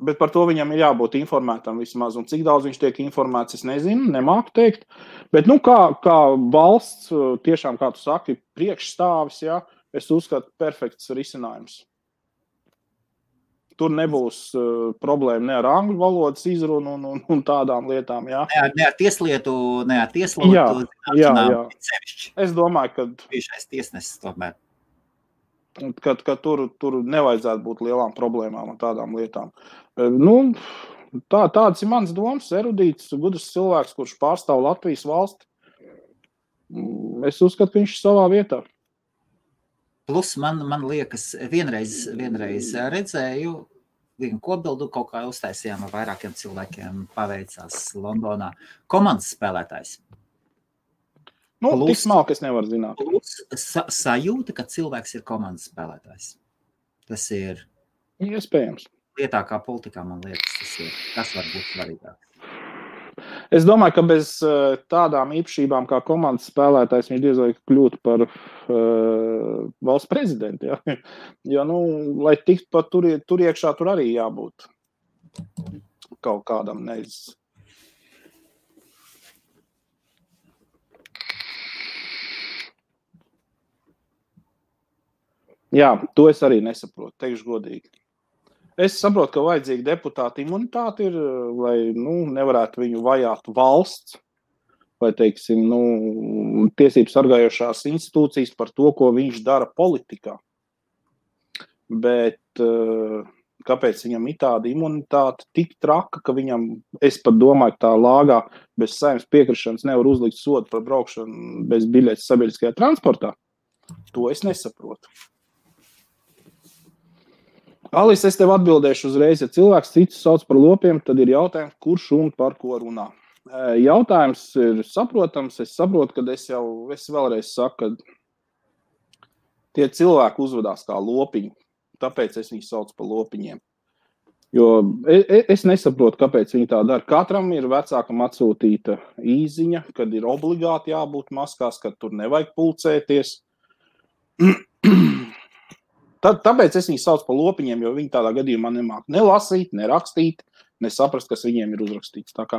[SPEAKER 1] Bet par to viņam ir jābūt informētam vismaz, un cik daudz viņš tiek informēts, es nezinu, nemāku teikt. Bet, kā valsts, tiešām, kā tu saki, priekšstāvis, jā, es uzskatu perfekts risinājums. Tur nebūs problēma ne ar angļu valodas izrunu un tādām lietām, jā.
[SPEAKER 2] Ne ar tieslietu,
[SPEAKER 1] jā. Es domāju, ka...
[SPEAKER 2] Bijušais tiesnesis tomēr.
[SPEAKER 1] Ka tur nevajadzētu būt lielām problēmām un tādām lietām. Tāds ir mans domas, erudīts, gudrs cilvēks, kurš pārstāv Latvijas valsti. Es uzskatu, ka viņš ir savā vietā.
[SPEAKER 2] Plus man liekas, vienreiz redzēju, vienu kopbildu kaut kā uztaisījām ar vairākiem cilvēkiem, paveicās Londonā. Komandas spēlētājs.
[SPEAKER 1] Tik smalki es nevaru zināt.
[SPEAKER 2] Plus sajūta, ka cilvēks ir komandas spēlētājs. Tas ir...
[SPEAKER 1] Iespējams.
[SPEAKER 2] Lietā kā politikā, man liekas, tas var būt svarīgāk.
[SPEAKER 1] Es domāju, ka bez tādām īpašībām kā komandas spēlētājs viņš diez vai kļūtu par valsts prezidentu. Ja? Jo, lai tikt pat tur iekšā, tur arī jābūt kaut kādam neizs. Jā, to es arī nesaprotu, teikšu godīgi. Es saprotu, ka vajadzīga deputāta imunitāte ir, lai nevarētu viņu vajāt valsts vai, teiksim, tiesības sargājošās institūcijas par to, ko viņš dara politikā. Bet kāpēc viņam ir tāda imunitāte tik traka, ka viņam, es pat domāju, ka tā lāgā bez Saeimas piekrišanas nevar uzlikt sodu par braukšanu bez biļetes sabiedriskajā transportā? To es nesaprotu. Alis, es tev atbildēšu uzreiz, ja cilvēks citus sauc par lopiem, tad ir jautājums, kurš un par ko runā. Jautājums ir saprotams, es saprotu, kad es vēlreiz saku, ka tie cilvēki uzvedās kā lopiņi, tāpēc es viņus saucu par lopiņiem. Jo es nesaprotu, kāpēc viņi tā dara. Katram ir vecākam atsūtīta īziņa, kad ir obligāti jābūt maskās, kad tur nevajag pulcēties. Tāpēc es viņus saucu par lopiņiem, jo viņi tādā gadījumā nemāk ne lasīt, ne rakstīt, ne saprast, kas viņiem ir uzrakstīts. Tā kā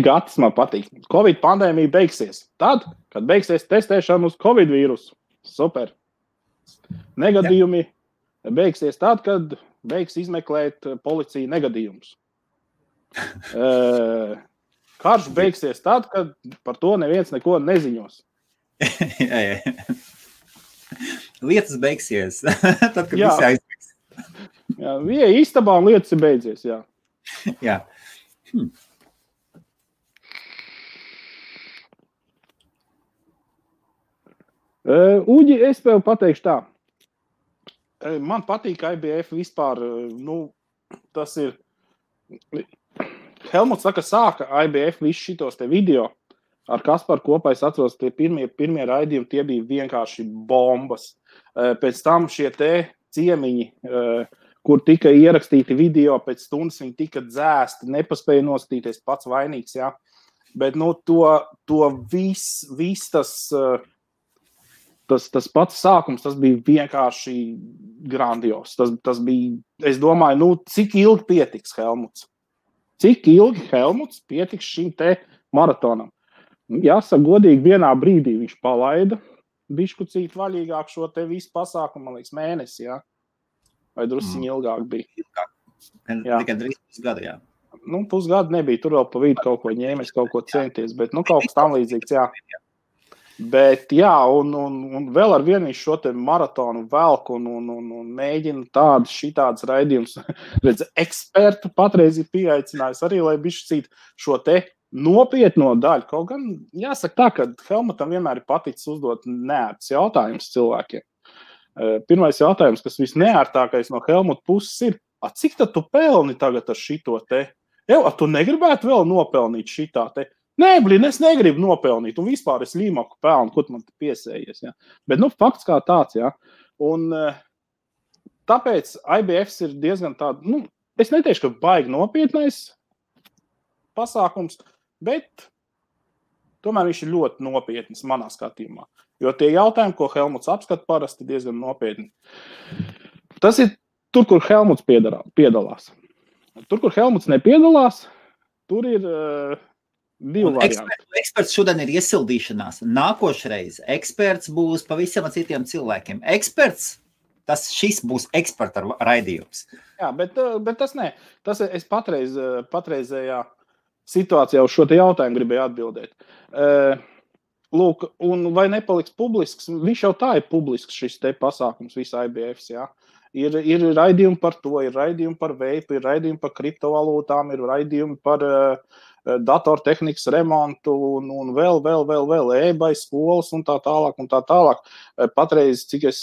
[SPEAKER 1] Gatis man patīk. Covid pandēmija beigsies. Tad, kad beigsies testēšana uz Covid vīrusu. Super. Negadījumi beigsies tad, kad beigs izmeklēt policija negadījumus. Karš beigsies tad, kad par to neviens neko neziņos.
[SPEAKER 2] Jā. Lietas beigsies, tad, kad visi aizbeigs.
[SPEAKER 1] Jā, bija istabā un lietas ir beidzies, jā.
[SPEAKER 2] Jā.
[SPEAKER 1] Uģi, es tev pateikšu tā. Man patīk IBF vispār, tas ir... Helmuts sāka IBF visu šitos te video. Ar Kasparu kopā es atceros, tie pirmie raidījumi, tie bija vienkārši bombas. Pēc tam šie te ciemiņi, kur tika ierakstīti video, pēc stundas viņi tika dzēsti, nepaspēja nostīties pats vainīgs, jā. Bet, to viss tas pats sākums, tas bija vienkārši grandios. Tas bija, es domāju, cik ilgi pietiks Helmuts? Cik ilgi Helmuts pietiks šim te maratonam? Jāsaka, godīgi, vienā brīdī viņš palaida biškucīt vaļīgāk šo te visu pasākumu, man liekas, mēnesi, jā? Vai drusciņi ilgāk bija?
[SPEAKER 2] Tikai drīz pusgadu, jā.
[SPEAKER 1] Pusgadu nebija, tur vēl pa vidu kaut ko ņēmies, kaut ko centies, bet, kaut kas tam līdzīgs, jā. Bet, jā, un vēl ar vienu viņš šo te maratonu velk un mēģina šitādas raidījumus. Redz, ekspertu patreiz ir pieaicinājis arī, lai biškucīt šo te nopietno daļu. Kaut gan jāsaka tā, ka Helmutam vienmēr ir paticis uzdot neērts jautājums cilvēkiem. Pirmais jautājums, kas visneērtākais no Helmuta puses ir, cik tad tu pelni tagad ar šito te? Tu negribētu vēl nopelnīt šitā te? Nē, es negribu nopelnīt, un vispār es līmaku pelnu, ko man te piesējies. Ja? Bet, fakts kā tāds, ja? Un tāpēc IBFs ir diezgan tāda, es neteikšu, ka baigi nopietnais pasākums, bet tomēr viņš ir ļoti nopietnis manā skatījumā. Jo tie jautājumi, ko Helmuts apskata parasti, diezgan nopietni. Tas ir tur, kur Helmuts piedalās. Tur, kur Helmuts nepiedalās, tur ir divi varianti.
[SPEAKER 2] Eksperts šodien ir iesildīšanās. Nākošreiz eksperts būs pavisam citiem cilvēkiem. Eksperts, šis būs eksperta raidījums.
[SPEAKER 1] Jā, bet tas ne. Tas es patreizējā situācijā uz šo te jautājumu gribēju atbildēt. Lūk, un vai nepaliks publisks? Viņš jau tā ir publisks šis te pasākums, visa IBFs, jā. Ir raidījumi par to, ir raidījumi par veipu, ir raidījumi par kriptovalūtām, ir raidījumi par datortehnikas remontu un vēl e-bai skolas un tā tālāk. Patreiz, cik es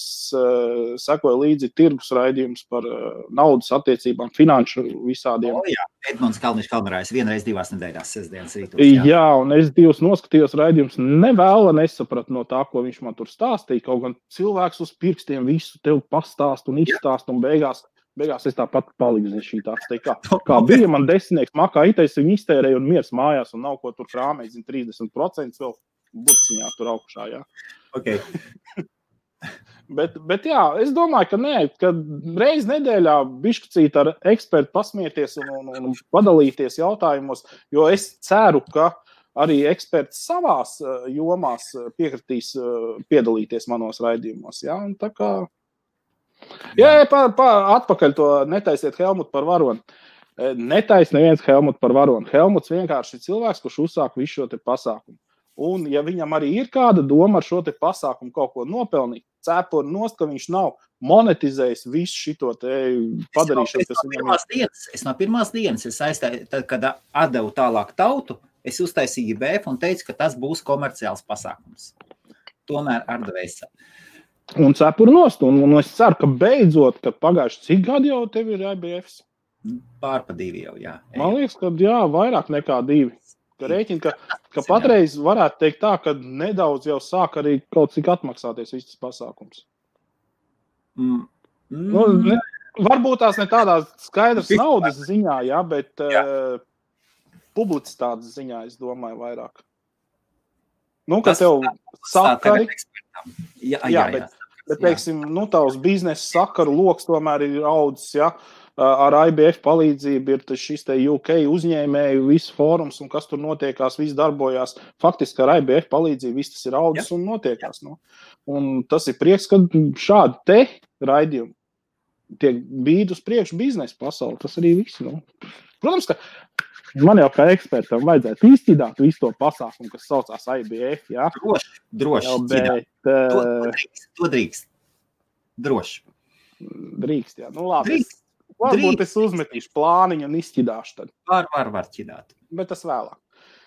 [SPEAKER 1] sekoju līdzi tirgus raidījums par naudas attiecībām, finanšu visādiem.
[SPEAKER 2] Jā, Edmunds Kalniņš vienreiz 2 nedēļās sestdienas rītos.
[SPEAKER 1] Jā, un es 2 noskatījos raidījums, nesapratu no tā, ko viņš man tur stāstīja, kaut gan cilvēks uz pirkstiem visu tev pastāst un izstāst un beigās es tāpat paliku zin šī tāds. Kā bija man 10 makā itais, viņi iztērēja un miers mājās un nav ko tur krāmēt, 30% vēl burciņā tur augšā, jā.
[SPEAKER 2] Okay.
[SPEAKER 1] bet jā, es domāju, ka nē, ka reiz nedēļā bišķicīt ar ekspertu pasmieties un padalīties jautājumos, jo es ceru, ka arī eksperts savās jomās piekritīs piedalīties manos raidījumos, jā, un tā kā Jā, atpakaļ to netaisiet Helmutu par varoni. Netais neviens Helmutu par varoni. Helmuts vienkārši ir cilvēks, kurš uzsāk visu šo te pasākumu. Un ja viņam arī ir kāda doma ar šo te pasākumu kaut ko nopelnīt, cepur nost, ka viņš nav monetizējis visu šito te padarīšanu, kas viņam ir.
[SPEAKER 2] Es no pirmās dienas, tad, kad atdevu tālāk tautu, es uztaisīju IBF un teicu, ka tas būs komerciāls pasākums. Tomēr ar dvēseli.
[SPEAKER 1] Un cepur nost, un es ceru, ka beidzot, kad pagājuši cik gadi jau tev ir IBFs?
[SPEAKER 2] Pār pa 2 jau, jā.
[SPEAKER 1] Man liekas, ka jā, vairāk nekā 2. Ka rēķina, ka patreiz varētu teikt tā, ka nedaudz jau sāk arī kaut cik atmaksāties viss tas pasākums. Nu, varbūt tās ne tādā skaidrs naudas ziņā, jā, bet publicitātes ziņā, es domāju, vairāk. Nu, ka tev sakari... Jā, bet teiksim, nu, tavs biznesa sakaru loks tomēr ir audzis, jā. Ar IBF palīdzību ir šis te UK uzņēmēju, viss fórums un kas tur notiekās, viss darbojās. Faktiski ar IBF palīdzību viss tas ir audzis un notiekās. Nu. Un tas ir prieks, ka šādi te raidījumi tiek bīd uz priekšu biznesa pasauli. Tas arī viss. Nu. Protams, ka man jau kā ekspertam vajadzētu izķidāt visu to pasākumu, kas saucās IBF, jā?
[SPEAKER 2] Droši. Bet, to drīkst. Droši.
[SPEAKER 1] Drīkst, jā. Nu, labi. Varbūt es uzmetīšu plāniņu un izķidāšu tad.
[SPEAKER 2] Var ķidāt.
[SPEAKER 1] Bet tas vēlāk.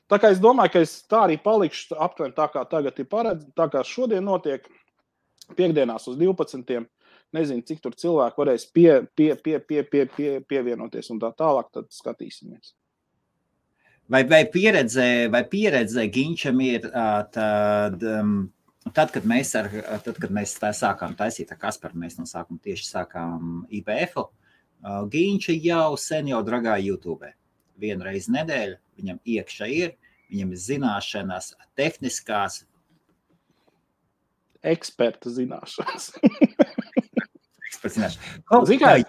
[SPEAKER 1] Tā kā es domāju, ka es tā arī palikšu aptuveni tā kā tagad ir paredz, tā kā šodien notiek piekdienās uz 12. Nezinu, cik tur cilvēki varēs pievienoties un tā tālāk, tad skatīsimies.
[SPEAKER 2] Vai pieredze Ginčam ir tad, kad mēs tā sākām taisīt ar Kasparu, mēs no sākuma tieši sākām IBF-u, Ginča jau sen jau dragāja YouTube. 1 reizi nedēļu viņam iekšā ir, viņam ir zināšanas, tehniskās.
[SPEAKER 1] Eksperta zināšanas.
[SPEAKER 2] Eksperta zināšanas.
[SPEAKER 1] Zikai,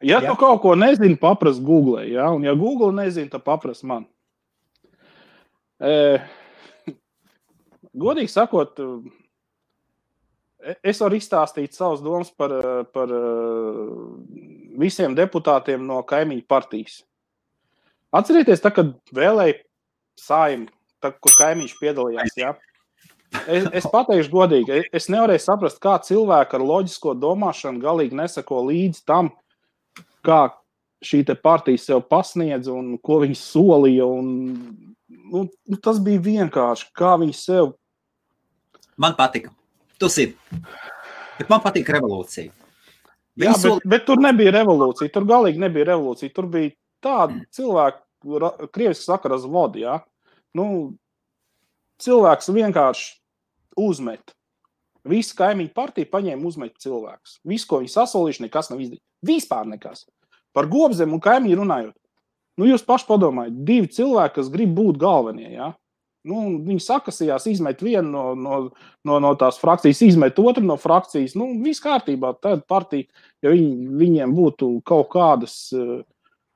[SPEAKER 1] ja tu kaut ko nezini, papras Google, ja? Un ja Google nezini, tad papras man. Godīgi sakot, es varu izstāstīt savas domas par visiem deputātiem no kaimiņu partijas. Atcerieties, tā, kad vēlēja Saeimu, kur kaimiņš piedalījās, jā? Es pateikšu godīgi, es nevarēju saprast, kā cilvēki ar loģisko domāšanu galīgi nesako līdz tam, kā šī te partija sev pasniedz un ko viņi solīja un nu, tas bija vienkārši, kā viņi sev...
[SPEAKER 2] Man patika. Tu zini. Bet man patīk revolūcija.
[SPEAKER 1] Jā, bet tur nebija revolūcija. Tur galīgi nebija revolūcija. Tur bija tādi cilvēki, krieviski saka razvodi, jā. Nu, cilvēks vienkārši uzmet. Visi kaimiņu partija paņēma uzmet cilvēkus. Visu, ko viņi sasolījuši, nekas nav izdarīt. Vispār nekas. Par Gobzemi un Kaimiņu runājot. Jūs paši padomājat, 2 cilvēki, kas grib būt galvenie, ja? Viņi sakasījās, izmet vienu no tās frakcijas, izmet otru no frakcijas. Viss kārtībā, tad partija, ja viņiem būtu kaut kādas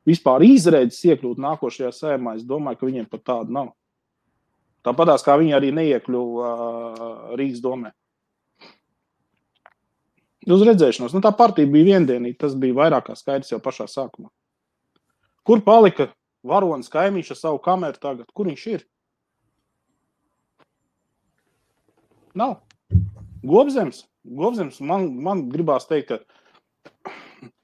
[SPEAKER 1] vispār izredzes iekļūt nākošajā Saeimā, es domāju, ka viņiem pat tāda nav. Tāpatās, kā viņi arī neiekļuva Rīgas domē. Uz redzēšanos. Tā partija bija viendienīga, tas bija vairāk kā skaidrs jau pašā sākumā. Kur palika varonis Kaimiņš ar savu kameru tagad? Kur viņš ir? Nav. Gobzems man gribās teikt, ka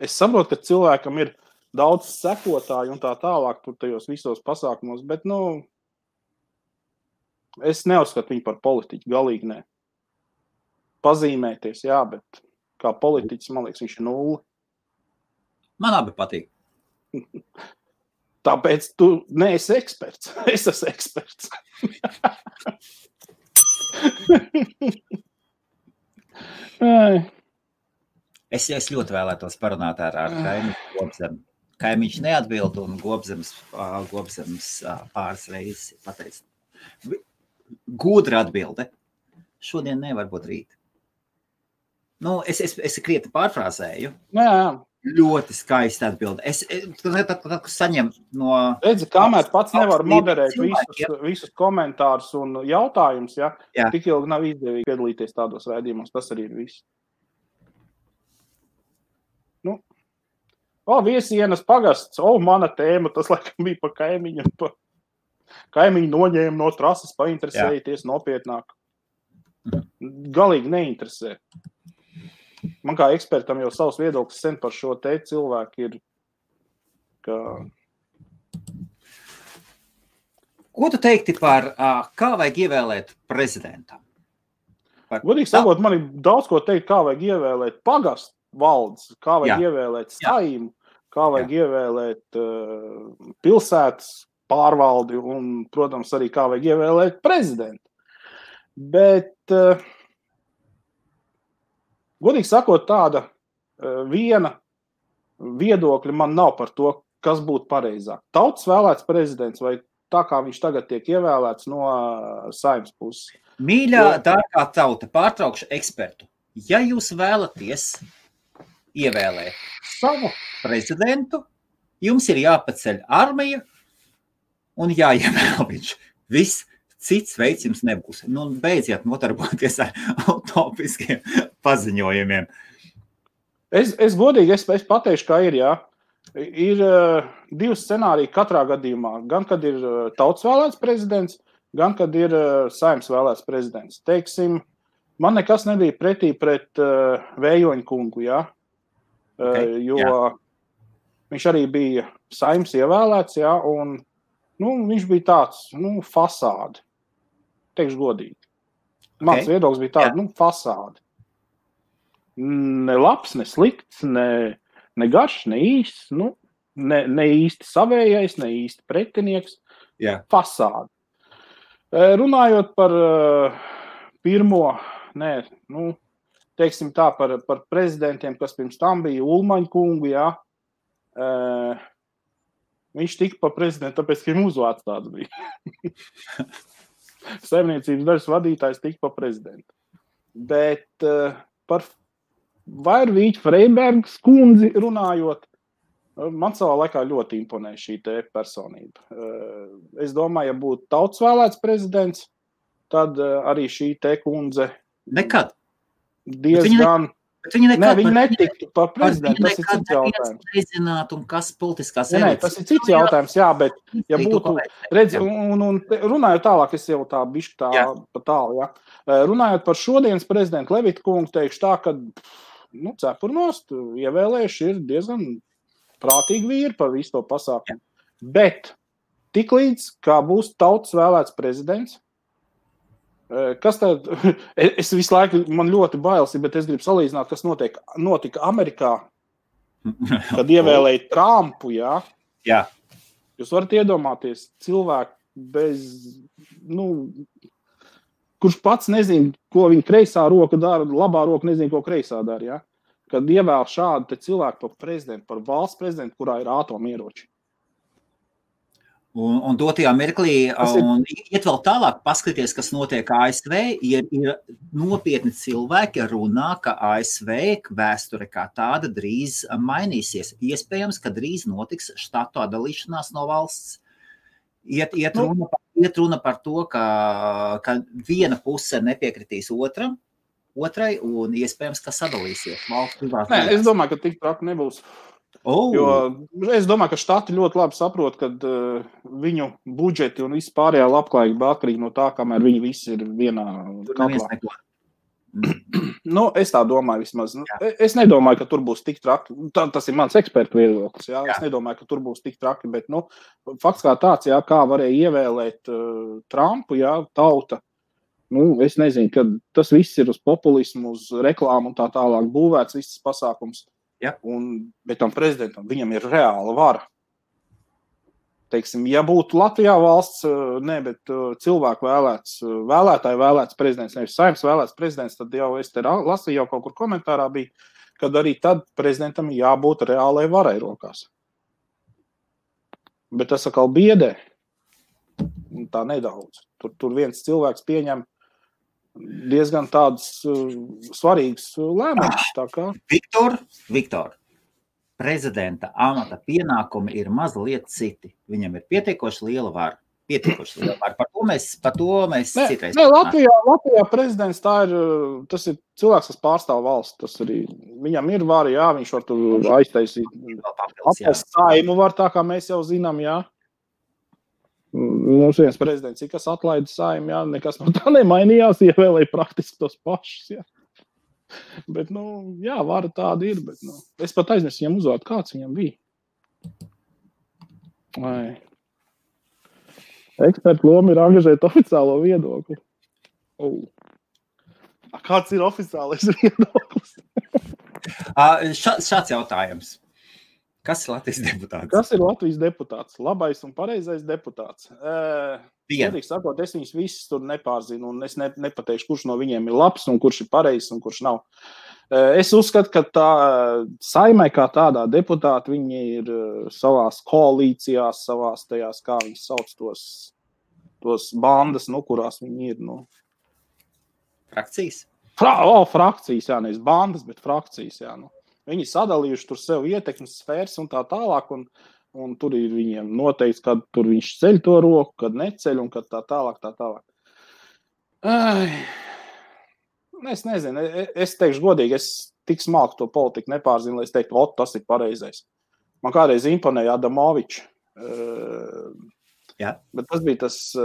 [SPEAKER 1] es saprotu, ka cilvēkam ir daudz sekotāju un tā tālāk tur tajos visos pasākumos, bet, es neuzskatu viņu par politiķu, galīgi ne. Pazīmēties, jā, bet kā politiķis, man liekas, viņš ir 0.
[SPEAKER 2] Man abi patīk.
[SPEAKER 1] Tāpēc tu neesi eksperts. Es esmu eksperts.
[SPEAKER 2] Es ļoti vēlētos parunāt ar Kaimiņu Gobzemi. Kaimiņš neatbild un Gobzems pāris reizes pateica. Gudra atbilde. Šodien nevar būt rīt. Es krieti pārfrāzēju.
[SPEAKER 1] Jā.
[SPEAKER 2] Ļoti skaisti atbildi. Tad saņem no...
[SPEAKER 1] Redzi, kamēr pats nevar moderēt visus komentārus un jautājumus, ja? Tik ilgi nav izdevīgi piedalīties tādos raidījumos, tas arī ir viss. Viesienas pagasts, mana tēma, tas laikam bija pa Kaimiņu. Kaimiņu noņēma no trases, painteresēties nopietnāk. Galīgi neinteresē. Man kā ekspertam jau savs viedoklis sen par šo te cilvēku ir, ka...
[SPEAKER 2] Ko tu teikti par, kā vajag ievēlēt prezidentam?
[SPEAKER 1] Godīgi sakot, man ir daudz ko teikt, kā vajag ievēlēt pagastu valdes, kā vajag ievēlēt Saimu, kā vajag ievēlēt pilsētas pārvaldi un, protams, arī kā vajag ievēlēt prezidentu. Bet... Godīgi sakot, tāda viena viedokļa man nav par to, kas būtu pareizāk. Tautas vēlēts prezidents vai tā, kā viņš tagad tiek ievēlēts no Saeimas puses.
[SPEAKER 2] Mīļā, dārgā tauta, pārtraukšu ekspertu. Ja jūs vēlaties ievēlēt savu prezidentu, jums ir jāpaceļ armija un jāievēl viņš. Viss. Cits veids jums nebūs. Beidziet notarboties ar utopiskiem paziņojumiem.
[SPEAKER 1] Es godīgi, es pateikšu, kā ir, jā. Ir 2 scenāriji katrā gadījumā. Gan, kad ir tautas vēlēts prezidents, gan, kad ir Saeimas vēlēts prezidents. Teiksim, man nekas nebija pretī pret Vējoņa kungu, jā. Jo viņš arī bija Saeimas ievēlēts, jā, un viņš bija tāds, fasādi. Teikšu godīgi. Mans viedoklis bija tāds, fasādi. Ne labs, ne slikts, ne garš, ne īsts, ne īsti savējais, ne īsti pretinieks. Fasādi. Runājot par pirmo, teiksim tā, par prezidentiem, kas pirms tam bija Ulmaņa kungu, jā. Viņš tika pa prezidentu, tāpēc, ka viņam uzvārds tāds bija. Saimniecības dažas vadītājs tika pa prezidentu. Bet par Vairvīķu Freibergas kundzi runājot, man savā laikā ļoti imponē šī te personība. Es domāju, ja būtu tautas vēlēts prezidents, tad arī šī te kundze...
[SPEAKER 2] Nekad.
[SPEAKER 1] Diezgan... Viņa netiktu par prezidentu, tas ir cits jautājums.
[SPEAKER 2] Nezināt, un kas politiskās
[SPEAKER 1] elites. Tas ir cits jautājums, jā, bet ja būtu, redzi, un runājot tālāk, es jau tā bišķi tā pa tālu, jā. Runājot par šodienas prezidentu Levita kungu, teikšu tā, ka, cepurnost ievēlējuši ir diezgan prātīgi vīri par visu to pasākumu. Bet tiklīdz, kā būs tautas vēlēts prezidents, kas tad, es visu laiku, man ļoti bailes, bet es gribu salīdzināt, kas notika Amerikā, kad ievēlēja Trumpu, jā?
[SPEAKER 2] Jā.
[SPEAKER 1] Jūs varat iedomāties cilvēku bez, kurš pats nezina, ko viņa kreisā roka dara, labā roka nezina, ko kreisā dara, jā? kad ievēl šādu te cilvēku par prezidentu, par valsts prezidentu, kurā ir atomieroči.
[SPEAKER 2] Un dotajā mirklī, un iet vēl tālāk, paskaties, kas notiek ASV, ir nopietni cilvēki runā, ka ASV vēsture kā tāda drīz mainīsies. Iespējams, ka drīz notiks štatu atdalīšanās no valsts. Iet runa par to, ka viena puse nepiekritīs otrai, un iespējams, ka sadalīsies valsts privātās.
[SPEAKER 1] Nē, es domāju, ka tik traki nebūs. Jo es domāju, ka štati ļoti labi saprot, ka viņu budžeti un viss pārējā labklājība atkarīgi no tā, kamēr viņi visi ir vienā katlā. Nu, es tā domāju vismaz. Es nedomāju, ka tur būs tik traki. Tas ir mans ekspertu viedoklis. Jā. Es nedomāju, ka tur būs tik traki, bet fakts kā tāds, jā, kā varēja ievēlēt Trumpu, jā, tauta. Es nezinu, ka tas viss ir uz populismu, uz reklāmu un tā tālāk būvēts, viss pasākums.
[SPEAKER 2] Ja.
[SPEAKER 1] Bet tam prezidentam viņam ir reāla vara. Teiksim, ja būtu Latvijā valsts, bet cilvēku vēlētāju vēlēts prezidents, nevis Saeimas vēlēts prezidents, tad jau es te lasīju, jau kaut kur komentārā bija, kad arī tad prezidentam jābūt reālai varai rokās. Bet tas atkal biedē. Tā nedaudz. Tur viens cilvēks pieņem diezgan tādus svarīgus lēmumus.
[SPEAKER 2] Viktor, prezidenta amata pienākumi ir mazliet citi. Viņam ir pietiekoši liela vara. Par to mēs citreiz.
[SPEAKER 1] Latvijā prezidents tas ir cilvēks, kas pārstāv valsts. Viņam ir vara, jā, viņš var tur aiztaisīt. Saimu var, tā kā mēs jau zinām, jā. Mums viens prezidents, kas atlaida Saimu, jā, nekas no tā nemainījās, ievēlēja praktiski tos pašus, jā. Bet, jā, vara tāda ir, bet, es pat aizmirsu viņam uzvārdu, kāds viņam bija. Ekspertu loma ir angažēt oficiālo viedokli. Kāds ir oficiālais viedoklis?
[SPEAKER 2] Šāds jautājums. Kas ir Latvijas deputāts?
[SPEAKER 1] Kas ir Latvijas deputāts? Labais un pareizais deputāts. Sakot, es viņus visus tur nepārzinu, un es nepateikšu, kurš no viņiem ir labs, un kurš ir pareizs, un kurš nav. Es uzskatu, ka tā Saimai kā tādā deputāti, viņi ir savās koalīcijās, savās tajās, kā viņi sauc tos bandas, kurās viņi ir.
[SPEAKER 2] Frakcijas?
[SPEAKER 1] Frakcijas, jā, nevis bandas, bet frakcijas, jā, Viņi sadalījuši tur sev ietekmes sfēras un tā tālāk, un tur ir viņiem noteikts, kad tur viņš ceļ to roku, kad neceļ, un kad tā tālāk. Es nezinu, es teikšu godīgi, es tik smalki to politiku nepārzinu, lai es teiktu, tas ir pareizais. Man kādreiz imponēja Adamovičs.
[SPEAKER 2] Jā.
[SPEAKER 1] Bet tas bija tas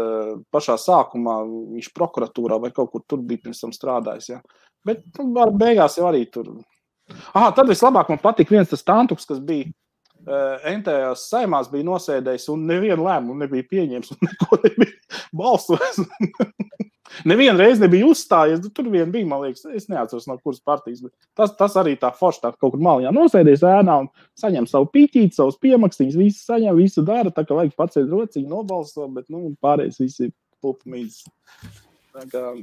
[SPEAKER 1] pašā sākumā, viņš prokuratūrā vai kaut kur tur bija pirms tam strādājis. Jā. Bet beigās jau arī tur... Tad vislabāk man patika viens tas tantuks, kas bija NTS Saimās bija nosēdējis un nevienu lēmumu nebija pieņēmis un neko nebija balsojis. Nevienu reizi nebija uzstājies, tur vien bija, man liekas, es neatceros no kuras partijas, bet tas arī tā forši tā kaut kur maliņā nosēdējis ēnā un saņem savu pīķīti, savus piemakstīņus, visu saņem, visu dara, tā kā vajag pacēt rociņu, nobalso, bet pārējais visi ir pulpmīzes.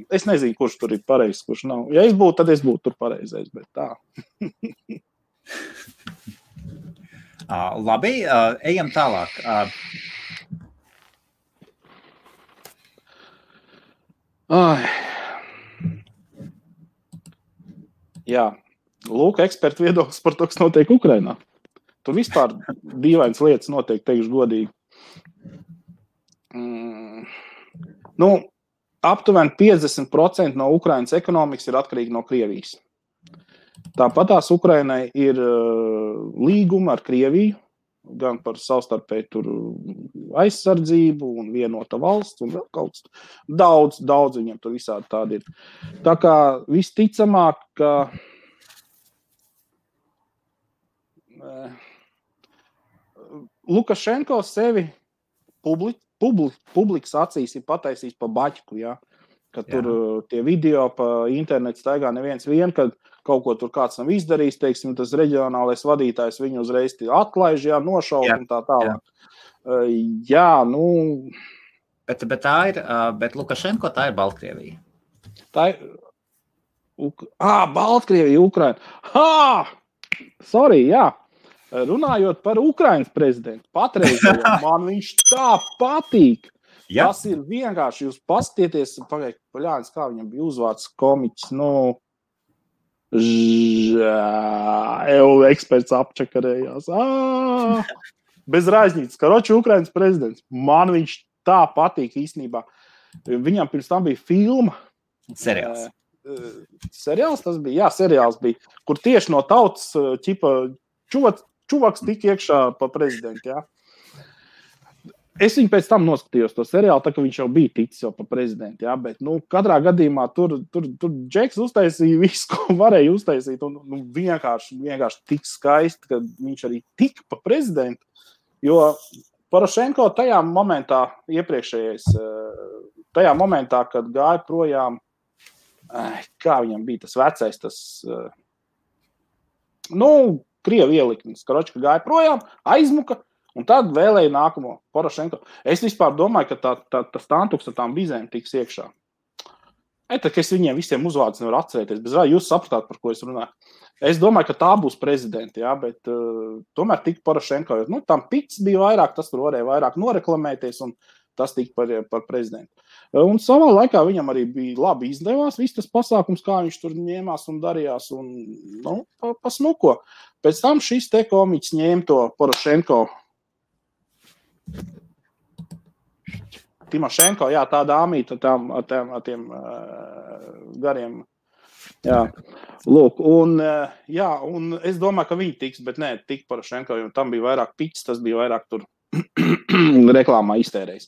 [SPEAKER 1] Es nezinu, kurš tur ir pareizs, kurš nav. Ja es būtu, tad es būtu tur pareizais, bet tā.
[SPEAKER 2] Labi, ejam tālāk.
[SPEAKER 1] Jā, lūk, ekspertu viedoklis par to, kas notiek Ukrainā. Tur vispār dīvainas lietas notiek, teikšu godīgi. Aptuveni 50% no Ukrainas ekonomikas ir atkarīgi no Krievijas. Tāpat tās Ukrainai ir līguma ar Krieviju, gan par savstarpēju tur aizsardzību un vienota valsts un vēl kaut kas. Daudz viņam tur visādi tādi ir. Tā kā visticamāk, ka Lukašenko sevi publikas acīs ir pataisījis pa baķku, ja? Kad tur tie video pa internetu staigā neviens kad kaut ko tur kāds nav izdarījis, teiksim, tas reģionālais vadītājs viņu uzreiz atlaiž, nošaut un tā tālāk.
[SPEAKER 2] Bet tā ir, bet Lukašenko tā ir Baltkrievija.
[SPEAKER 1] Baltkrievija, Ukraina. Sorry, jā. Runājot par Ukrainas prezidentu, patreizējo, man viņš tā patīk. Ja. Tas ir vienkārši, jūs paskatieties, paļānis, kā viņam bija uzvārds komiķis, eksperts apčakarējās. Bez rāžņītas, karoči Ukrainas prezidents. Man viņš tā patīk īstenībā. Viņam pirms tam bija filma.
[SPEAKER 2] Seriāls.
[SPEAKER 1] Seriāls tas bija? Jā, seriāls bija, kur tieši no tautas čuvaks tika iekšā pa prezidentu, jā. Es viņu pēc tam noskatījos to seriālu, tā ka viņš jau bija ticis jau pa prezidentu, jā, bet, katrā gadījumā tur Džeks uztaisīja visu, ko varēja uztaisīt, un vienkārši tik skaisti, ka viņš arī tika pa prezidentu, jo Porošenko tajā momentā, tajā momentā, kad gāja projām, kā viņam bija tas vecais, Krievu ieliknis, karoči, ka gāja projām, aizmuka, un tad vēlēja nākamo Porošenko. Es vispār domāju, ka tas tantuks ar tām bizēm tiks iekšā. Tā, ka es viņiem visiem uzvārdus nevaru atcerēties, bet jūs sapratāt, par ko es runāju. Es domāju, ka tā būs prezidenti, jā, bet tomēr tika Porošenko, jo tam pits bija vairāk, tas tur varēja vairāk noreklamēties, un tas tika par prezidentu. Un savā laikā viņam arī bija labi izdevās viss tas pasākums, kā viņš tur ņēmās un darījās, un pasmuko. Pēc tam šis te komiķis ņēma to Porošenko. Timošenko, jā, tā dāmīta ar tiem gariem. Jā, lūk, un es domāju, ka viņi tiks, bet nē, tik Porošenko, jo tam bija vairāk piķis, tas bija vairāk tur reklāmā iztērējis.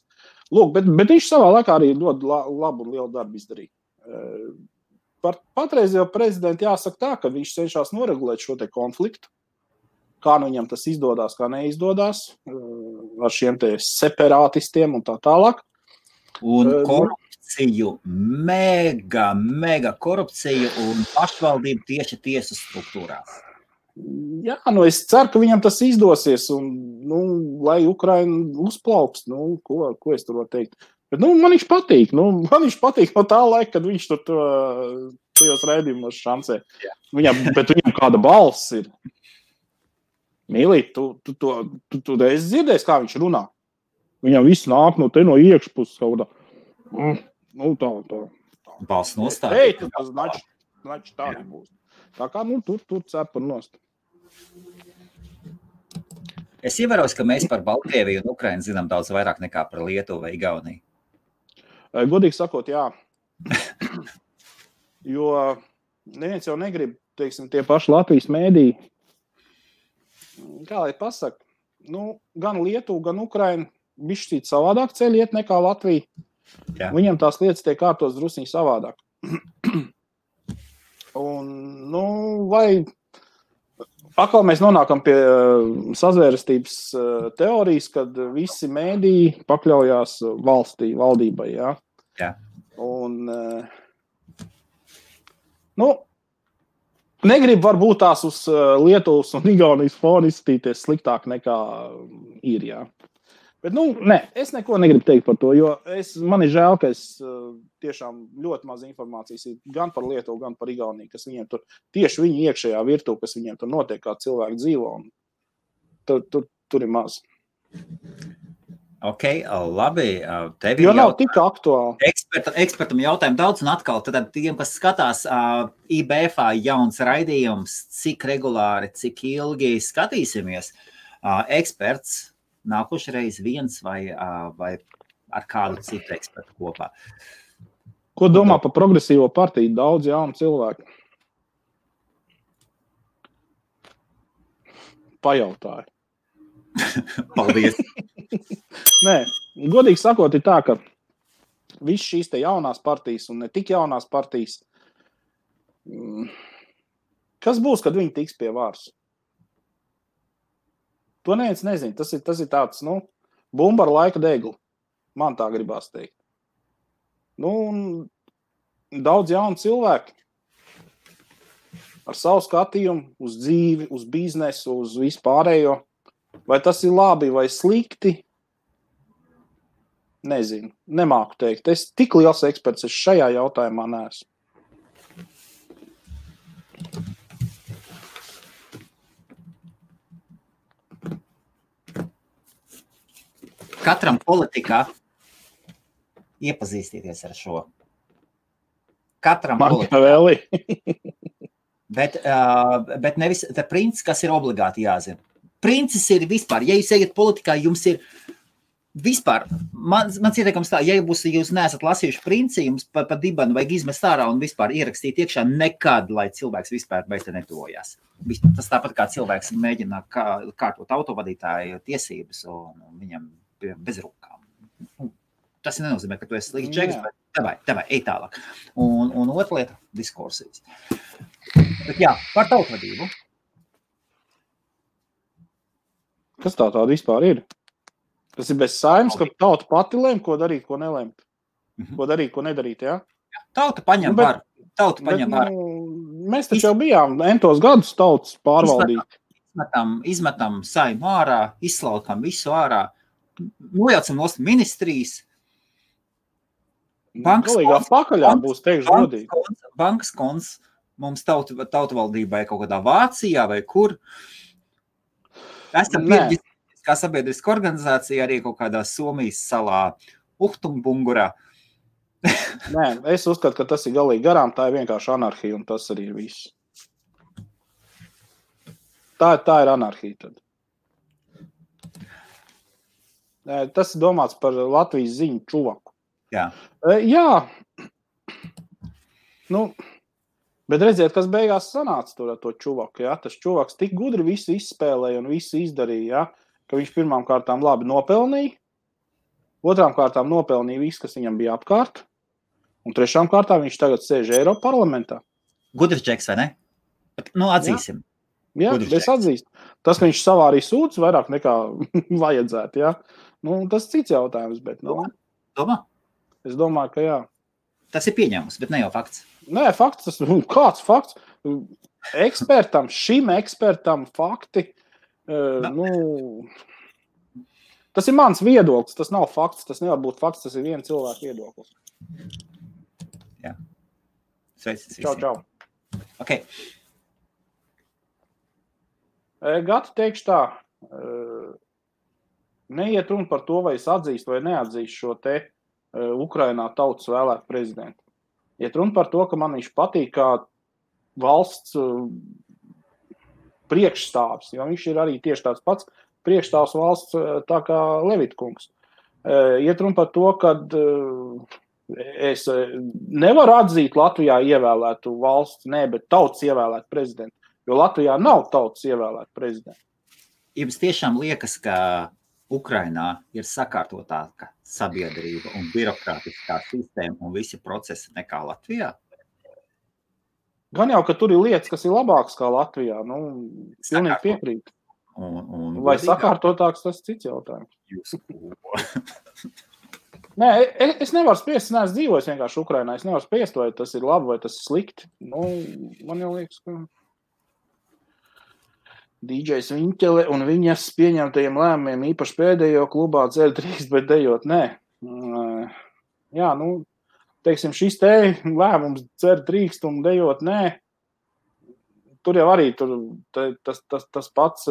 [SPEAKER 1] Lūk, bet viņš savā laikā arī ļoti labu un lielu darbu izdarīja. Par patreizējo prezidentu jāsaka tā, ka viņš cenšas noregulēt šo te konfliktu. Kā viņam tas izdodās, kā neizdodas, ar šiem te separātistiem un tā tālāk.
[SPEAKER 2] Un korupciju, mega korupciju un pašvaldību tieši tiesu struktūrās.
[SPEAKER 1] Jā, es ceru, ka viņam tas izdosies un, lai Ukraina uzplaukst, ko es tur varu teikt. Bet, man viņš patīk, man viņš patīk no tā laika, kad viņš tur tajos raidījumos šancē. Bet viņam kāda balss ir. Mīlīt, tu esi dzirdējis, kā viņš runā. Viņam viss nāk no iekšpuses kaut tā.
[SPEAKER 2] Balss nostāja.
[SPEAKER 1] Tas znači tā nebūs. Tā kā, tur cepur nost.
[SPEAKER 2] Es ievēroju, ka mēs par Baltkrieviju un Ukrainu zinām daudz vairāk nekā par Lietuvu vai Igauniju.
[SPEAKER 1] Godīgi sakot, jā. Jo neviens jau negrib, teiksim, tie paši Latvijas mēdī. Kā lai pasaka, gan Lietuva, gan Ukraina bišķīt savādāk ceļi iet nekā Latvija. Jā. Viņam tās lietas tiek kārtos drusciņi savādāk. Un, vai atkal mēs nonākam pie sazvērestības teorijas, kad visi mēdī pakļaujās valdībai, jā?
[SPEAKER 2] Jā.
[SPEAKER 1] Un, negribu varbūt tās uz Lietuvas un Igaunijas fonu izskatīties sliktāk nekā ir, jā. Bet, nē, es neko negribu teikt par to, jo man ir žēl, ka es tiešām ļoti maz informācijas ir gan par Lietuvu, gan par Igauniju, kas viņiem tur, tieši viņu iekšējā virtuve, kas viņiem tur notiek, kā cilvēki dzīvo, un tur ir maz.
[SPEAKER 2] Ok, labi.
[SPEAKER 1] Jo nav tik aktuāli.
[SPEAKER 2] Ekspertam jautājumu daudz, un atkal, tad tiem, kas skatās IBF jauns raidījums, cik regulāri, cik ilgi skatīsimies, eksperts nākošreiz viens vai ar kādu citu ekspertu kopā.
[SPEAKER 1] Ko domā par progresīvo partiju? Daudz jaunu cilvēku. Pajautāju.
[SPEAKER 2] Paldies.
[SPEAKER 1] Nē, godīgi sakot, ir tā, ka viss šīs te jaunās partijas un ne tik jaunās partijas, kas būs, kad viņi tiks pie varas? To neviens nezina. Tas ir tāds, bumba ar laika degli. Man tā gribās teikt. Daudz jaunu cilvēku ar savu skatījumu uz dzīvi, uz biznesu, uz vispārējo. Vai tas ir labi vai slikti? Nezinu. Nemāku teikt. Es tik liels eksperts šajā jautājumā neesmu.
[SPEAKER 2] Katram politikā iepazīstieties ar šo. Katram politikā. Bet nevis tā princis, kas ir obligāti jāzina. Princis ir vispār. Ja jūs ejat politikā, jums ir vispār. Mans ieteikums tā, ja jūs neesat lasījuši princi, jums pa dibanu vajag izmest ārā un vispār ierakstīt iekšā nekad, lai cilvēks vispār bez te netuvojās. Tas tāpat kā cilvēks mēģina kārtot autovadītāju tiesības un viņam bez rokām. Tas nenozīmē, ka tu esi slikts čeks, bet tavai, ej tālāk. Un otra lieta – diskursijas. Bet jā, par tautvadību.
[SPEAKER 1] Kas tā tāda vispār ir? Tas ir bez saimnes, ka tauta pati lēm, ko darīt, ko nelēmt. Ko darīt, ko nedarīt, jā?
[SPEAKER 2] Tauta paņem varu.
[SPEAKER 1] Mēs taču jau bijām entos gadus tautas pārvaldīt.
[SPEAKER 2] Izmetam saimu ārā, izslaukam visu ārā, nojaucam nost ministrijas.
[SPEAKER 1] Galīgā pakaļā būs teikšu godīgi.
[SPEAKER 2] Bankas konts mums tautavaldībai kaut kādā Vācijā vai kur. Esam kā sabiedriska organizācija arī kaut kādā Somijas salā Uhtumbungurā.
[SPEAKER 1] Nē, es uzskatu, ka tas ir galīgi garām, tā ir vienkārši anarhija un tas arī ir viss. Tā ir anarhija tad. Tas ir domāts par Latvijas ziņu čuvaku.
[SPEAKER 2] Jā.
[SPEAKER 1] Bet redziet, kas beigās sanāca tur ar to čuvaku, jā? Tas čuvaks tik gudri visu izspēlēja un visu izdarīja, jā? Ka viņš pirmām kārtām labi nopelnīja, otrām kārtām nopelnīja visu, kas viņam bija apkārt, un trešām kārtām viņš tagad sēž Eiropa parlamentā.
[SPEAKER 2] Gudrs džeks, vai ne? Atzīsim.
[SPEAKER 1] Jā, es atzīstu. Tas, ka viņš savārīja sūdz vairāk nekā vajadzētu, jā. Tas cits jautājums, bet,
[SPEAKER 2] Domā?
[SPEAKER 1] Es domāju, ka jā.
[SPEAKER 2] Tas ir pieņēmums, bet ne jau fakts.
[SPEAKER 1] Nē, fakts, kāds fakts? Šim ekspertam fakti, tas ir mans viedoklis, tas nav fakts, tas nevar būt fakts, tas ir viena cilvēka viedoklis.
[SPEAKER 2] Jā. Sveicis
[SPEAKER 1] visiem. Čau.
[SPEAKER 2] Ok.
[SPEAKER 1] Gati teikšu tā, neiet runa par to, vai es atzīstu vai neatzīstu šo te Ukrainā tautas vēlētu prezidentu. Iet runa par to, ka man viņš patīk kā valsts priekšstāvs, jo viņš ir arī tieši tāds pats priekšstāvs valsts tā kā Levitkungs. Iet runa par to, ka es nevaru atzīt Latvijā ievēlētu valsts, bet tautas ievēlētu prezidentu, jo Latvijā nav tautas ievēlētu prezidentu.
[SPEAKER 2] Jums tiešām liekas, ka Ukrainā ir sakārtotāka sabiedrība un birokrātiskā sistēma un visi procesi nekā Latvijā?
[SPEAKER 1] Gan jau, ka tur ir lietas, kas ir labākas kā Latvijā. Pilnīgi piekrīt. Vai sakārtotāks, tas cits jautājums. Nē, es nevaru spiest, es neesmu dzīvojis vienkārši Ukrainā. Es nevaru spiest, vai tas ir labi, vai tas ir slikti. Man jau liekas, ka DJs Viņķele un viņas pieņemtajiem lēmumiem īpaši pēdējo klubā dzer drīkst, bet dejot nē. Jā, teiksim, šis te lēmums dzer drīkst un dejot nē. Tur jau arī tas pats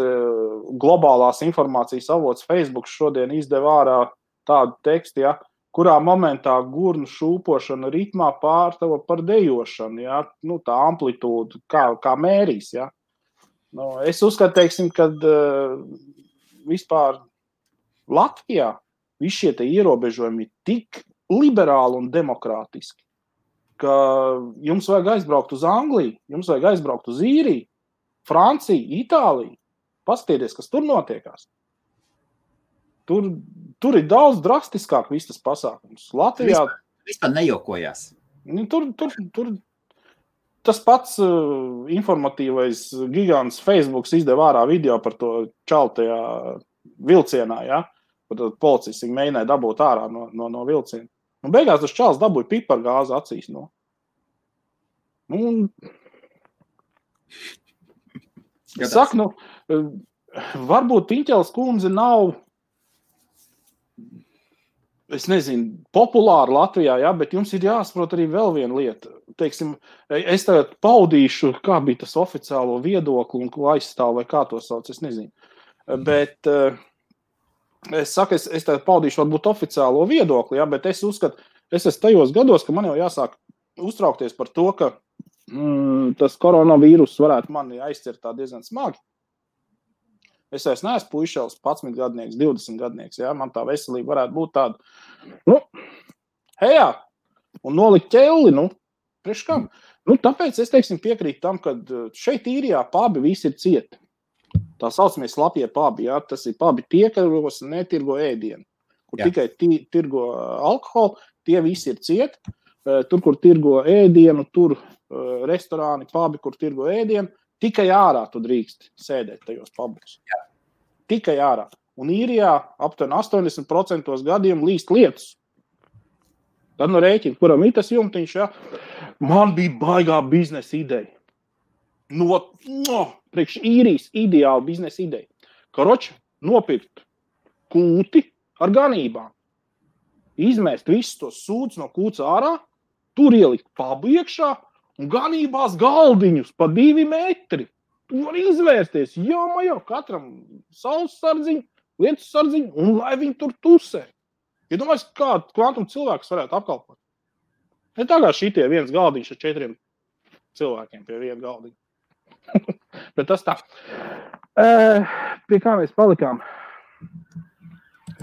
[SPEAKER 1] globālās informācijas avots Facebook šodien izdeva ārā tādu tekstu, ja, kurā momentā gurnu šūpošana ritmā pārtava par dejošanu, ja, tā amplitūda, kā mērīs, ja. Es uzskatu, teiksim, kad vispār Latvijā visi šie te ierobežojumi ir tik liberāli un demokrātiski, ka jums vajag aizbraukt uz Angliju, jums vajag aizbraukt uz Īriju, Franciju, Itāliju. Paskatieties, kas tur notiekās. Tur ir daudz drastiskāk viss tas pasākums. Latvijā
[SPEAKER 2] vispār nejokojās.
[SPEAKER 1] Tur tas pats informatīvais gigants Facebooks izdeva ārā video par to čaltajā vilcienā, ja? Par policists viņi mēģināja dabūt ārā no vilciena. Un beigās tas čals dabūja pipargāzi acīs. Es saku, varbūt Piņķeles kundze nav, es nezinu, populāra Latvijā, ja, bet jums ir jāsaprot arī vēl viena lieta. Teiksim, es tagad paudīšu, kā bija tas oficiālo viedokli un ko aizstāv vai kā to sauc, es nezinu. Bet Es saku, es tev paudīšu varbūt oficiālo viedokli, ja, bet es uzskatu, es esmu tajos gados, ka man jau jāsāk uztraukties par to, ka tas koronavīrus varētu mani aizcert tā diezgan smagi. Es vairs neesmu puišels, 11 gadnieks, 20 gadnieks, ja, man tā veselība varētu būt tāda, hejā, un nolikt ķelli, priekš kam? Tāpēc es, teiksim, piekrītu tam, ka šeit Īrijā pabi visi ir cieti. Tā saucamie slapjie pabi, ja, tas ir pabi tie, kas netirgo ēdienu, kur tikai tirgo alkoholu, tie visi ir cieti. Tur, kur tirgo ēdienu, tur restorāni, pabi, kur tirgo ēdienu, tikai ārā tu drīkst sēdēt tajos pabos. Tikai ārā. Un Īrijā aptuveni 80% gadiem līst lietus. Tad rēķina, kuram ir tas jumtiņš, ja? Man bija baigā biznesa ideja. Priekš Īrijas ideāla biznesa ideja. Karoči, nopirkt kūti ar ganībām. Izmēst visus tos sūdus no kūts ārā, tur ielikt pabu iekšā un ganībās galdiņus pa 2 metri. Tu vari izvērsties, jā, katram saules sardziņu, lietus sardziņu, un lai viņi tur tusē. Ja domājies, kā kvantum cilvēks varētu apkalpot? Ne tā kā šitie viens galdiņš ar 4 cilvēkiem pie viena galdiņa. Bet tas tā. Pie kā mēs palikām?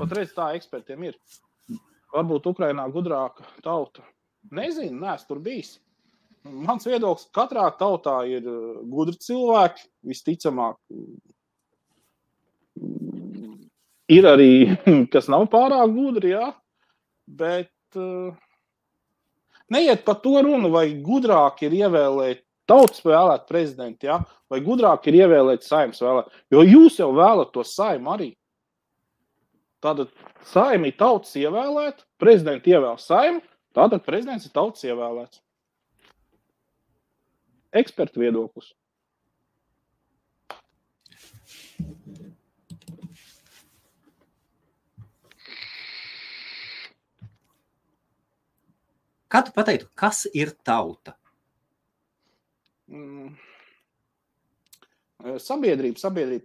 [SPEAKER 1] Otreiz tā ekspertiem ir. Varbūt Ukrainā gudrāka tauta. Nezinu, neesmu tur bijis. Mans viedoklis, katrā tautā ir gudri cilvēki, visticamāk. Ir arī, kas nav pārāk gudri, jā, bet neiet par to runu, vai gudrāk ir ievēlēt tautas vēlēt prezidentu, jā, vai gudrāk ir ievēlēt Saeimas vēlēt, jo jūs jau vēlat to Saimu arī. Tātad Saima ir tautas ievēlēt, prezidenti ievēl Saimu, tātad prezidents ir tautas ievēlēts. Ekspertu viedoklis.
[SPEAKER 2] Kā tu pateiktu, kas ir tauta?
[SPEAKER 1] Sabiedrība,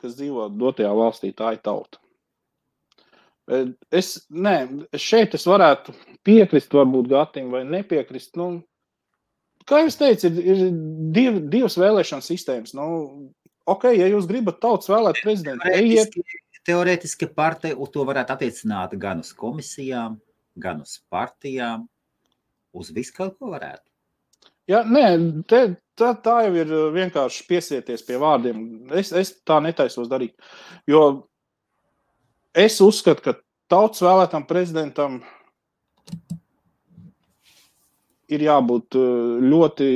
[SPEAKER 1] kas dzīvo dotajā valstī, tā ir tauta. Šeit es varētu piekrist varbūt Gatim vai nepiekrist. Kā jūs teicu, ir divas vēlēšanas sistēmas. Ja jūs gribat tautas vēlēt prezidentu, ejiet.
[SPEAKER 2] Teorētiski partija to varētu attiecināt gan uz komisijām, gan uz partijām, uz visu kaut ko varētu.
[SPEAKER 1] Jā, tā jau ir vienkārši piesieties pie vārdiem. Es tā netaisos darīt. Jo es uzskatu, ka tautas vēlētam prezidentam ir jābūt ļoti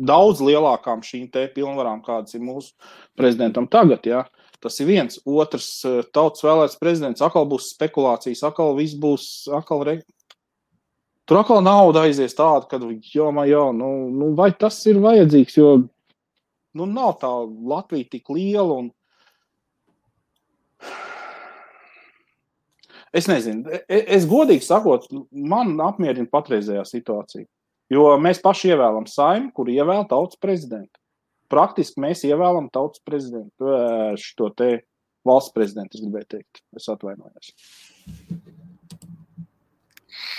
[SPEAKER 1] daudz lielākām šīm te pilnvarām, kādas ir mūsu prezidentam tagad. Ja? Tas ir viens. Otrs, tautas vēlēts prezidents, atkal būs spekulācijas, atkal viss būs, tur atkal nauda aizies tāda, kad vai tas ir vajadzīgs, jo nav tā Latvija tik liela un es nezinu, es godīgi sakot, man apmierina patreizējā situācija, jo mēs paši ievēlam Saimu, kur ievēl tautas prezidentu. Praktiski mēs ievēlam tautas prezidentu, šito te valsts prezidentu, es gribēju teikt, es atvainojos.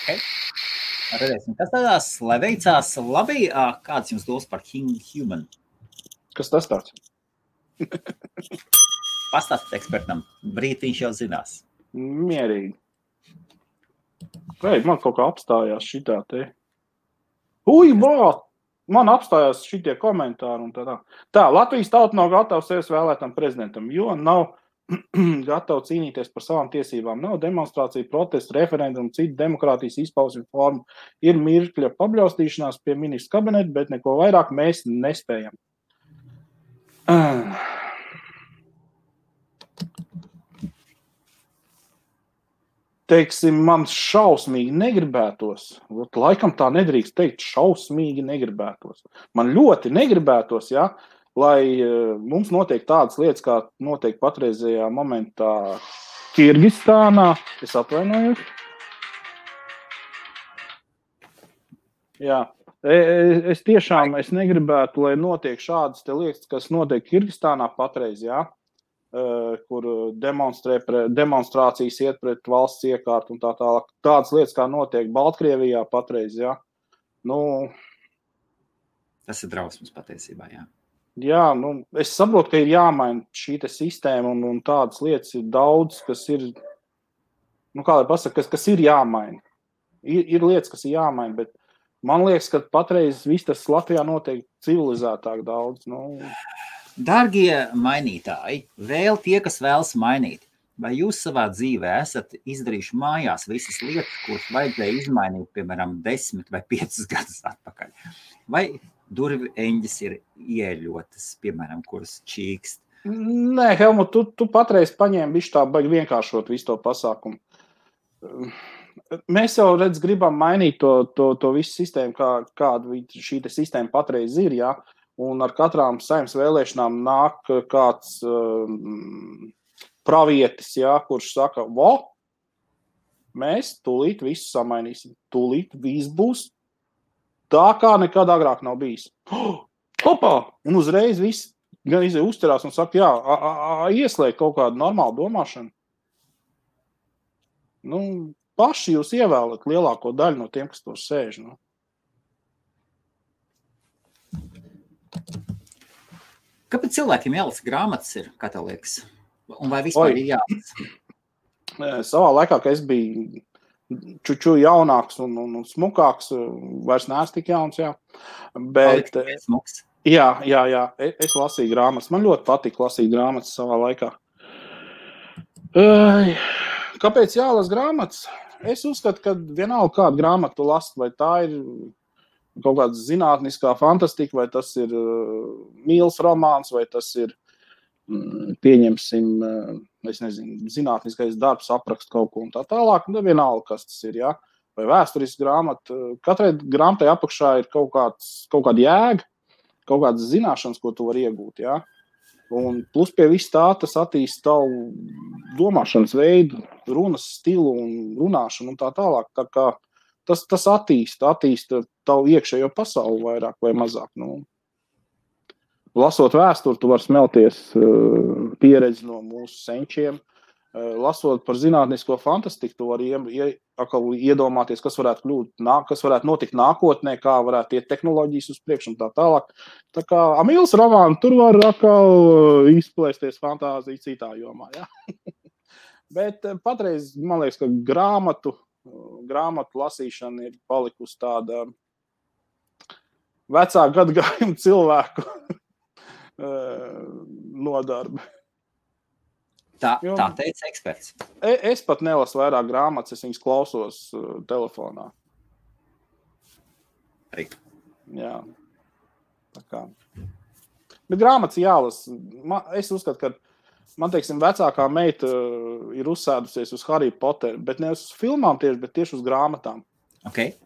[SPEAKER 2] Okay. Redzēsim, kas tādās, lai veicās labi, kāds jums dos par Human?
[SPEAKER 1] Kas tas tāds?
[SPEAKER 2] Pastāstīt ekspertam, brītiņš jau zinās.
[SPEAKER 1] Mierīgi. Man kaut kā apstājās šitā te. Man apstājās šitie komentāri un tā. Tā, Latvijas tauta nav gatava sevis vēlētam prezidentam, jo nav gatava cīnīties par savām tiesībām. Nav demonstrācija, protestu, referendumu, citu demokrātijas izpausmi formu. Ir mirkļa pabļaustīšanās pie ministra kabineta, bet neko vairāk mēs nespējam. Teiksim, man šausmīgi negribētos, laikam tā nedrīkst teikt, šausmīgi negribētos. Man ļoti negribētos, ja, lai mums notiek tādas lietas, kā notiek patreizējā momentā Kirgistānā. Es atvainojos. Jā, es tiešām negribētu, lai notiek šādas te lietas, kas notiek Kirgistānā patreiz, jā. kur demonstrācijas iet pret valsts iekārtu un tā tālāk. Tādas lietas, kā notiek Baltkrievijā patreiz, jā.
[SPEAKER 2] Tas ir drausmas patiesībā, jā.
[SPEAKER 1] Jā, es saprotu, ka ir jāmaina šī sistēma un tādas lietas ir daudz, kas ir, kā lai pasaka, kas ir jāmaina. Ir lietas, kas ir jāmaina, bet man liekas, ka patreiz viss tas Latvijā notiek civilizētāk daudz.
[SPEAKER 2] Dārgie mainītāji, vēl tie, kas vēlas mainīt, vai jūs savā dzīvē esat izdarījuši mājās visas lietas, kuras vajadzēja izmainīt, piemēram, 10 vai 5 gadus atpakaļ? Vai durvju eņģis ir ieļotas, piemēram, kuras čīkst?
[SPEAKER 1] Nē, Helmut, tu patreiz paņēmi visu tā baigi vienkāršot visu to pasākumu. Mēs jau, gribam mainīt to visu sistēmu, kāda šī sistēma patreiz ir, jā. Un ar katrām saimnes vēlēšanām nāk kāds pravietis, jā, kurš saka, mēs tūlīt visu samainīsim, tūlīt viss būs tā, kā nekad agrāk nav bijis. Hopā! Un uzreiz viss gan uzturās un saka, jā, ieslēgt kaut kādu normālu domāšanu. Paši jūs ievēlat lielāko daļu no tiem, kas tur sēž.
[SPEAKER 2] Kāpēc cilvēkiem jālasa grāmatas ir, kā tev liekas? Un vai vispār ir jālasa?
[SPEAKER 1] Savā laikā, kad es biju čuču jaunāks un smukāks, vairs neesmu tik jauns, jā. Bet, jā, es lasīju grāmatas. Man ļoti patika lasīt grāmatas savā laikā. Kāpēc jālasa grāmatas? Es uzskatu, ka vienalga kādu grāmatu last, vai tā ir kaut kāda zinātniskā fantastika, vai tas ir mīls romāns, vai tas ir, pieņemsim, es nezinu, zinātniskais darbs, aprakst kaut ko un tā tālāk, vienalga, kas tas ir, jā. Vai vēsturisks grāmata. Katrai grāmatai apakšā ir kaut kāda jēga, kaut kādas zināšanas, ko tu vari iegūt, jā. Un plus pie viss tā, tas attīst tavu domāšanas veidu, runas stilu un runāšanu un tā tālāk. Tā kā tas attīst tavu iekšējo pasauli vairāk vai mazāk. Lasot vēsturi, tu vari smelties pieredzi no mūsu senčiem. Lasot par zinātnisko fantastiku, tu vari iedomāties, kas varētu notikt nākotnē, kā varētu iet tehnoloģijas uz priekšu un tā tālāk. Tā kā mīls romāni, tur var atkal izplēsties fantāzija citā jomā. Ja? Bet patreiz, man liekas, ka grāmatu lasīšana ir palikusi tāda vecā gadagājuma cilvēku nodarbe.
[SPEAKER 2] Tā teica eksperts.
[SPEAKER 1] Es pat nelasu vairāk grāmatas, es viņas klausos telefonā. Jā. Tā kā. Bet grāmatas jālasa. Es uzskatu, ka man, teiksim, vecākā meita ir uzsēdusies uz Harry Potteru, bet ne uz filmām tieši, bet tieši uz grāmatām.
[SPEAKER 2] Okay.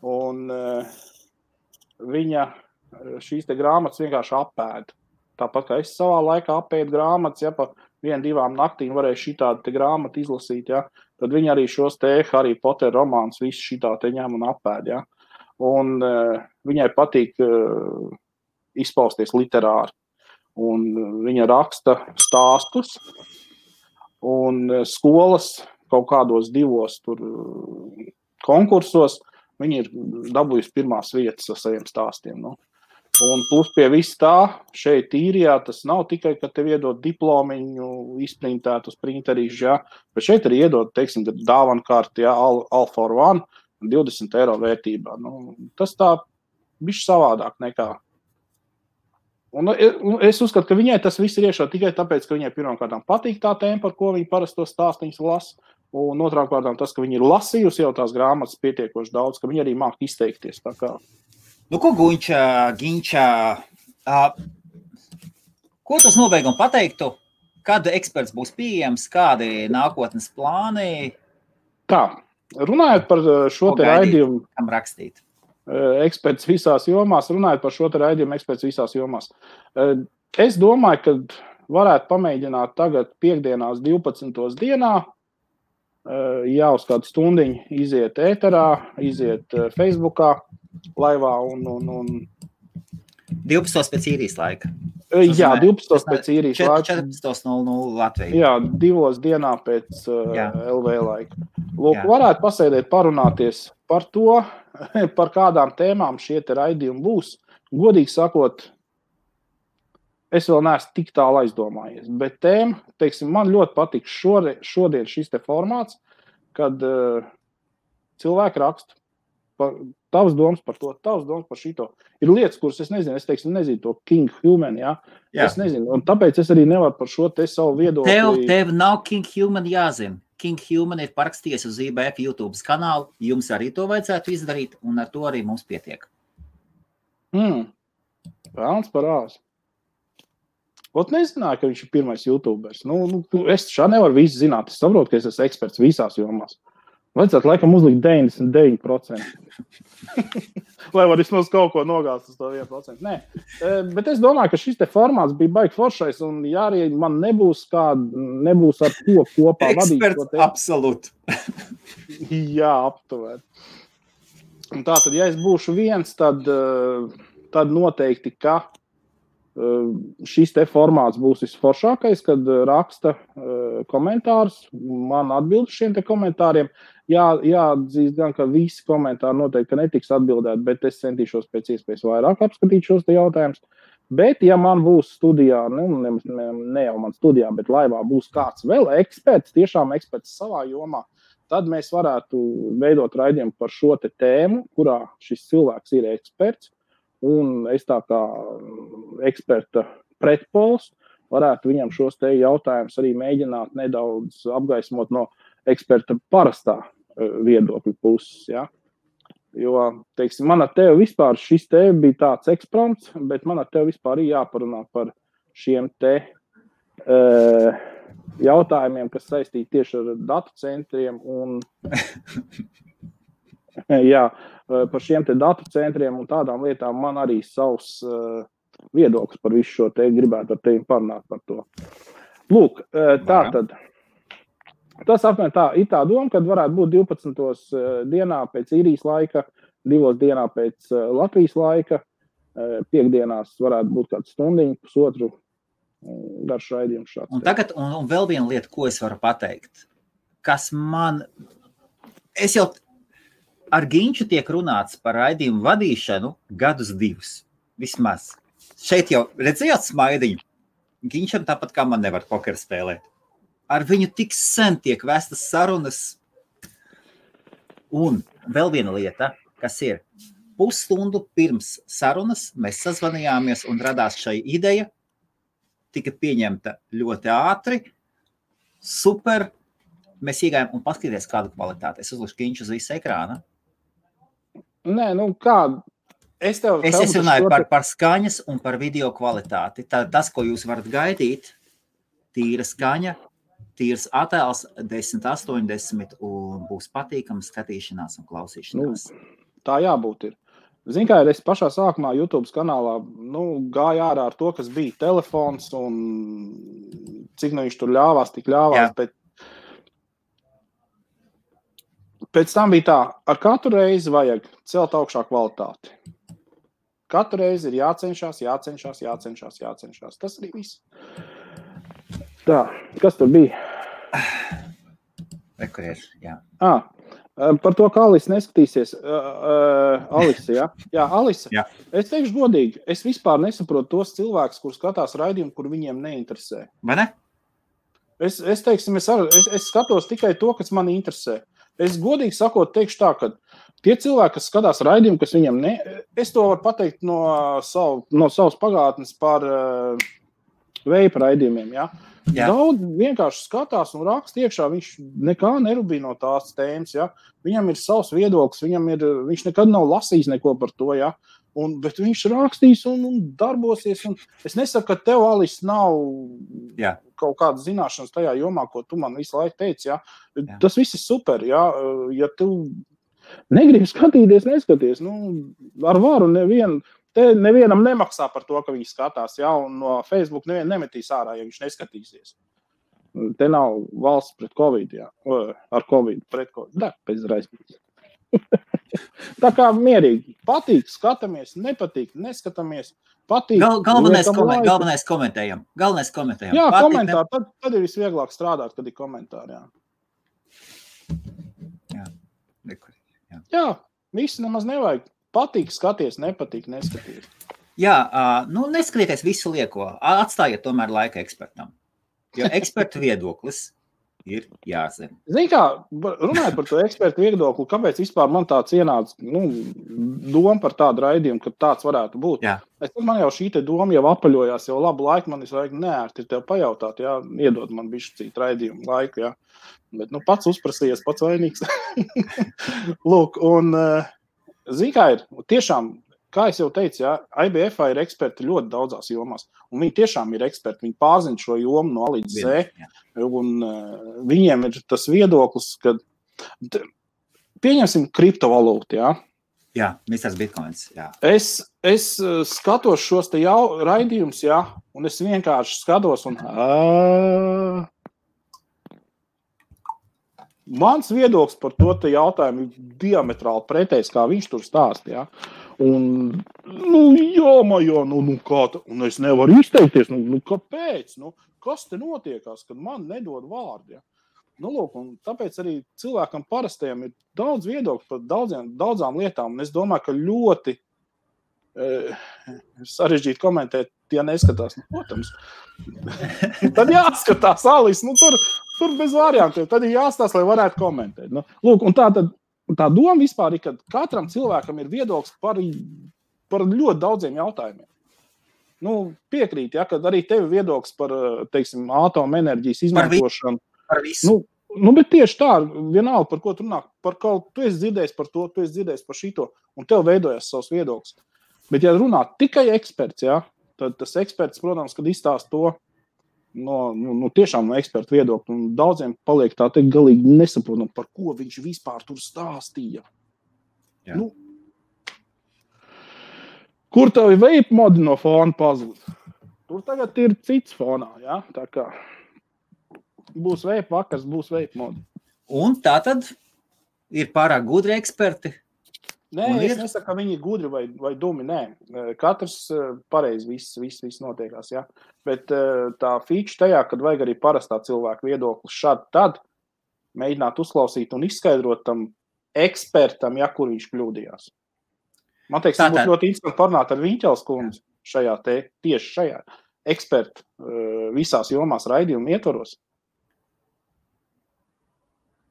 [SPEAKER 1] Un viņa šīs te grāmatas vienkārši apēda. Tāpat, kā es savā laikā apēdu grāmatas, ja pa 1-2 naktīm varēju šitādu te grāmatu izlasīt, ja, tad viņi arī šos te Harry Potter romāns visu šitā te ņem un apēd, ja. Un viņai patīk izpausties literāri. Un viņa raksta stāstus un skolas kaut kādos 2 tur konkursos viņi ir dabūjusi pirmās vietas ar saviem stāstiem, nu. Un plus pie viss tā, šeit īrijā tas nav tikai, ka tev iedod diplomiņu izprintēt uz printerīšu, ja, bet šeit arī iedod, teiksim, dāvankārti, ja, all for one, 20 eiro vērtībā. Nu, tas tā bišķi savādāk nekā. Un es uzskatu, ka viņai tas viss ir iešā tikai tāpēc, ka viņai pirmkārtām patīk tā tēma, par ko viņa parasti to stāstiņus lasa, un otrām kārtām tas, ka viņa ir lasījusi jau tās grāmatas pietiekoši daudz, ka viņa arī māk izteikties tā kā.
[SPEAKER 2] Nu, ko Ginča, ko tas nobeigum pateiktu? Kad eksperts būs pieejams, kādi nākotnes plāni?
[SPEAKER 1] Tā, runājot par šo te raidījumu.
[SPEAKER 2] Kam rakstīt?
[SPEAKER 1] Eksperts visās jomās, runājot par šo te raidījumu eksperts visās jomās. Es domāju, ka varētu pamēģināt tagad piekdienās 12. dienā, uz kādu stundiņu iziet ēterā, iziet Facebookā, laivā un
[SPEAKER 2] 12 pēc īrijas laika.
[SPEAKER 1] Jā, 12 pēc īrijas laika.
[SPEAKER 2] 14.00 Latvijā.
[SPEAKER 1] Jā, 2 dienā pēc LV laika. Lūk, varētu pasēdēt parunāties par to, par kādām tēmām šie te raidījumi būs. Godīgi sakot, es vēl neesmu tik tālu aizdomājies, bet tēma, teiksim, man ļoti patīk šodien šis te formāts, kad cilvēki raksta tavs domas par to, tavs domas par šito. Ir lietas, kuras es nezinu, nezinu to King Human, jā? Es nezinu, un tāpēc es arī nevaru par šo te savu viedokli.
[SPEAKER 2] Tev nav King Human jāzina. King Human ir parakstījies uz IBF YouTube kanālu, jums arī to vajadzētu izdarīt, un ar to arī mums pietiek.
[SPEAKER 1] Vēlns parās. Ot nezināju, ka viņš ir pirmais YouTubers. Es šā nevaru visu zināt, es saprotu, ka es esmu eksperts visās jomās. Vajadzētu laikam uzlikt 99%. Lai var vismaz kaut ko nogāzt uz to 1%. Nē, bet es domāju, ka šis te formāts bija baigi foršais, un ja arī man nebūs ar to kopā vadīt.
[SPEAKER 2] Eksperts, absolūti.
[SPEAKER 1] Jā, aptuveni. Un tātad, ja es būšu viens, tad noteikti, ka šis te formāts būs visforšākais, kad raksta komentārus, man atbild šiem te komentāriem. Jāatzīst gan, ka visi komentāri noteikti netiks atbildēti, bet es centīšos pēc iespējas vairāk apskatīt šos te jautājumus. Bet, ja man būs studijā, ne jau man studijā, bet laivā būs kāds vēl eksperts, tiešām eksperts savā jomā, tad mēs varētu veidot raidījumu par šo te tēmu, kurā šis cilvēks ir eksperts. Un es tā kā eksperta pretpols varētu viņam šos te jautājumus arī mēģināt nedaudz apgaismot no eksperta parastā viedokļa puses. Ja? Jo, teiksim, man ar tevi vispār šis te bija tāds eksprompts, bet man ar tevi vispār arī jāparunā par šiem te jautājumiem, kas saistīti tieši ar datu centriem un par šiem te datu centriem un tādām lietām man arī savs viedoklis par visu šo te gribētu ar tevi parunāt par to. Lūk, tātad, tas apmēram tā, ir tā doma, kad varētu būt 12. dienā pēc īrijas laika, 2 dienā pēc Latvijas laika, piekdienās varētu būt kāds stundiņu, pusotru garš raidījums šāds.
[SPEAKER 2] Un tagad, un vēl viena lieta, ko es varu pateikt, kas man, es jau ar Ginču tiek runāts par raidījumu vadīšanu 2 gadus, vismaz. Šeit jau redzējāt smaidiņu. Ginčam tāpat kā man nevar pokeru spēlēt. Ar viņu tik sen tiek vestas sarunas. Un vēl viena lieta, kas ir pusstundu pirms sarunas, mēs sazvanījāmies un radās šai ideja, tika pieņemta ļoti ātri, super, mēs iegājām un paskatīties kādu kvalitāti. Es uzlikšu Ginču uz visu ekrāna.
[SPEAKER 1] Nē, kā? Es
[SPEAKER 2] runāju par skaņas un par video kvalitāti. Tas, ko jūs varat gaidīt, tīra skaņa, tīrs attēls 1080 un būs patīkams skatīšanās un klausīšanās.
[SPEAKER 1] Tā jābūt ir. Zin kā, es pašā sākumā YouTube kanālā gāju ārā ar to, kas bija telefons un cik viņš tur ļāvās, tik ļāvās, bet pēc tam bija tā, ar katru reizi vajag celt augšā kvalitāti. Katru reizi ir jācenšas. Tas arī viss. Tā, kas tur bija?
[SPEAKER 2] Jā.
[SPEAKER 1] Par to, kā Alisa neskatīsies. Alisa, jā? Jā, Alisa. Jā. Es teikšu godīgi, es vispār nesaprotu tos cilvēkus, kur skatās raidījumu, kur viņiem neinteresē.
[SPEAKER 2] Vai ne?
[SPEAKER 1] Es skatos tikai to, kas mani interesē. Es godīgi sakot teikšu tā, ka tie cilvēki, kas skatās raidījumu, kas viņam es to varu pateikt no savas pagātnes par veipa raidījumiem, ja? Daudz vienkārši skatās un raksta iekšā, viņš nekā nerubīja no tās tēmas, ja? Viņam ir savs viedoklis, viņš nekad nav lasījis neko par to, ja? Bet viņš rakstīs un darbosies. Un es nesaku, ka tev, Alis, nav kaut kāda zināšanas tajā jomā, ko tu man visu laiku teici. Ja? Tas viss ir super. Ja tu negribi skatīties, neskaties. Ar varu nevienam nemaksā par to, ka viņš skatās. Ja? Un no Facebook nevien nemetīs ārā, ja viņš neskatīsies. Te nav valsts pret Covid. Ja? Ar Covid, pret Covid. Da, pēc raizpēc. Tā kā mierīgi. Patīk, skatāmies, nepatīk, neskatāmies. Patīk.
[SPEAKER 2] Galvenais komentējam.
[SPEAKER 1] Jā, patīk, komentāri. Tad ir visvieglāk strādāt, kad ir komentāri. Jā, visi nemaz nevajag. Patīk, skaties, nepatīk, neskaties.
[SPEAKER 2] Jā, neskatieties visu lieko. Atstājiet tomēr laika ekspertam. Jo ekspertu viedoklis ir jāzina.
[SPEAKER 1] Zini kā, runājot par to ekspertu viedokli, kāpēc vispār man tāds ienāca doma par tādu raidījumu, ka tāds varētu būt.
[SPEAKER 2] Jā.
[SPEAKER 1] Man jau šī te doma jau apaļojās, jau labu laiku man vajag neērti tev pajautāt, jā, iedod man bišķi cīt raidījumu laiku, jā. Bet, pats uzprasījies, pats vainīgs. Lūk, un zini kā ir, tiešām, kā es jau teicu, jā, IBF ir eksperti ļoti daudzās jomās, un viņi tiešām ir eksperti, viņi pārzina šo jomu no A līdz Z, un viņiem ir tas viedoklis, ka pieņemsim kriptovalūtu, jā.
[SPEAKER 2] Jā, Mr. Bitcoins, jā.
[SPEAKER 1] Es skatos šos te raidījumus, jā, un es vienkārši skatos, un mans viedoklis par to te jautājumu ir diametrāli pretējs, kā viņš tur stāst, jā. Un, kā tā, un es nevaru izteikties, kāpēc, kas te notiekās, kad man nedod vārdu, ja? Lūk, un tāpēc arī cilvēkam parastajam ir daudz viedokļu par daudzām lietām, un es domāju, ka ļoti sarežģīti komentēt, ja neskatās, protams. Tad jāskatās, Alis, tur bez variantiem, tad ir jāstās, lai varētu komentēt. Lūk, un tā doma vispār ir, ka katram cilvēkam ir viedoklis par ļoti daudziem jautājumiem. Piekrīt, ja, kad arī tev viedoklis par, teiksim, atomenerģijas izmantošanu.
[SPEAKER 2] Par visu.
[SPEAKER 1] Bet tieši tā, vienalga, par ko tu runā, par kaut, tu esi dzirdējis par to, tu esi dzirdējis par šito, un tev veidojas savs viedoklis. Bet, ja runā tikai eksperts, ja, tad tas eksperts, protams, kad izstāst to, tiešām no ekspertu viedokļa, un daudziem paliek tā teikt galīgi nesaprotam, par ko viņš vispār tur stāstīja. Kur tavi vape modi no fona pazūd? Tur tagad ir cits fonā, ja? Tā kā būs vape vakars, būs vape modi.
[SPEAKER 2] Un tā tad ir pārāk gudri eksperti?
[SPEAKER 1] Nē, es nesaku, ka viņi ir gudri vai dumi, nē. Katrs pareizi viss notiekās, ja. Bet tā feature tajā, kad vajag arī parastā cilvēka viedoklis šādi tad mēģināt uzklausīt un izskaidrot tam ekspertam, ja kur viņš kļūdījās. Man teiks, būtu ļoti interesanti parunāt ar Viņķels kundzi tieši šajā ekspertu visās jomās raidījumu ietvaros.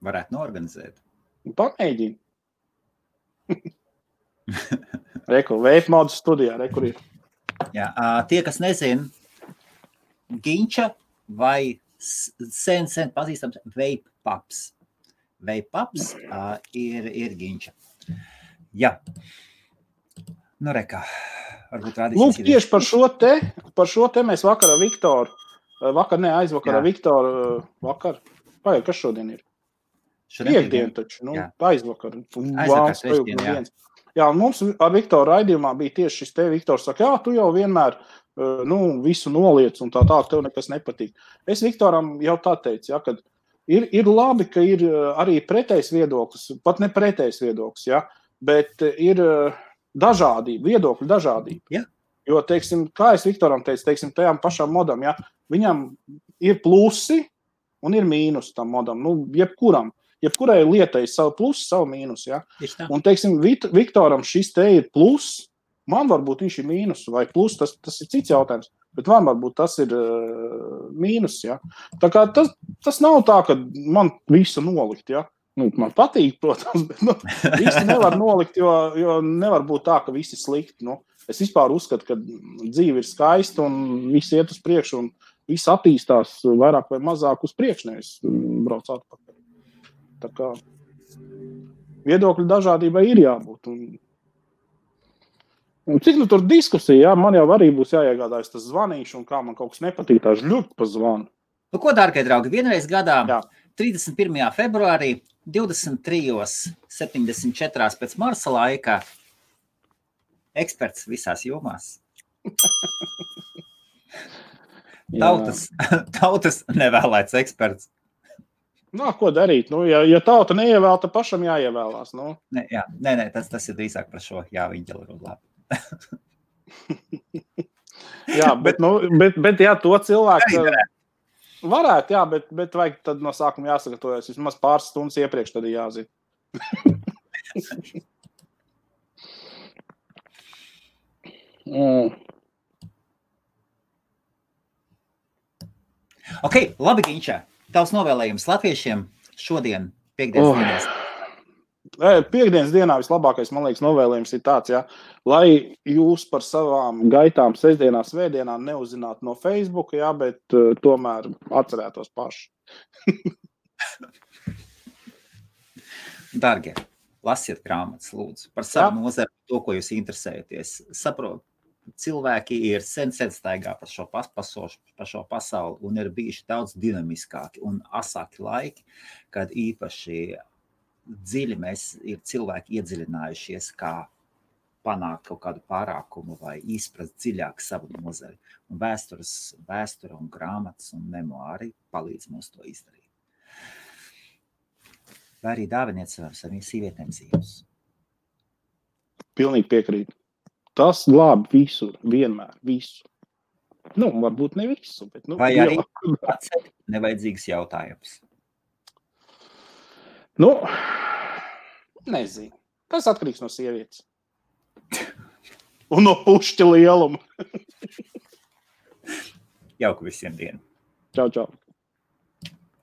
[SPEAKER 2] Varētu noorganizēt.
[SPEAKER 1] Pamēģini. Reku, vape modu studijā, rekur ir.
[SPEAKER 2] Jā, tie, kas nezin, Ginča vai sen pazīstams vape pups. Vape pups ir Ginča. Jā. Rekā, varbūt rādīsies.
[SPEAKER 1] Lūk, tieši par šo te mēs vakar ar Viktoru, aizvakar ar Viktoru, kas šodien ir? Piekdien taču, aizvakar. Jā, un mums ar Viktoru raidījumā bija tieši šis te. Viktors saka, tu jau vienmēr visu noliec un tā, tev nekas nepatīk. Es Viktoram jau tā teicu, ja, kad ir labi, ka ir arī pretējs viedoklis, pat ne pretējs viedoklis, ja, bet ir dažādība, viedokļu dažādība.
[SPEAKER 2] Ja.
[SPEAKER 1] Jo, teiksim, kā es Viktoram teicu, teiksim, tajām pašām modam, ja, viņam ir plusi un ir mīnus tam modam, jebkurai lietai ir savu plusu, savu mīnusu, ja? Un, teiksim, Viktoram šis te ir plus, man varbūt viņš ir mīnus vai plus, tas ir cits jautājums, bet man varbūt tas ir mīnus, ja? Tā kā tas nav tā, ka man visu nolikt, ja? Man patīk, protams, bet visu nevar nolikt, jo nevar būt tā, ka visi slikti, Es vispār uzskatu, ka dzīve ir skaista un viss iet uz priekšu un viss attīstās vairāk vai mazāk uz priekšu, nevis brauc atpakaļ. Tā kā viedokļu dažādībai ir jābūt. Un cik tur diskusija, man jau arī būs jāiegādājas tas zvanīšu, un kā man kaut kas nepatīk, tā žļūt pa zvanu.
[SPEAKER 2] Ko, dārgie draugi, vienreiz gadā, 31. februārī, 23:74 pēc Marsa laika, eksperts visās jomās. Tautas nevēlēts eksperts.
[SPEAKER 1] Ko darīt? Ja tauta neievēl, tad pašam jāievēlās.
[SPEAKER 2] Nē, tas ir drīzāk par šo jāviņģeli rudlā.
[SPEAKER 1] Jā, bet to cilvēku varētu, jā, bet vajag tad no sākuma jāsagatavojas. Vismaz pāris stundas iepriekš tad jāzina.
[SPEAKER 2] Ok, labi, Ginčā. Tavs novēlējums latviešiem šodien, piekdienas dienās.
[SPEAKER 1] Piekdienas dienā vislabākais, man liekas, novēlējums ir tāds, lai jūs par savām gaitām sestdienā, svētdienā neuzzinātu no Facebook, bet tomēr atcerētos paši.
[SPEAKER 2] Dargie, lasiet grāmatas, lūdzu, par savu nozari, to, ko jūs interesējaties. Saprotu, cilvēki ir sen staigā par šo pasauli un ir bijuši daudz dinamiskāki un asāki laiki, kad īpaši dziļi ir cilvēki iedziļinājušies, kā panākt kaut kādu pārākumu vai izprast dziļāk savu nozari. Un vēsture un grāmatas un memoāri palīdz mums to izdarīt. Vai arī dāviniet saviem sīvietēm dzīves.
[SPEAKER 1] Pilnīgi piekrīt. Tas glāb visu, vienmēr, visu. Varbūt ne visu, bet
[SPEAKER 2] vai arī atcelt nevajadzīgs jautājums.
[SPEAKER 1] Nezinu. Tas atkarīgs no sievietes. Un no pušķa lieluma.
[SPEAKER 2] Jauku visiem dienu.
[SPEAKER 1] Čau, čau.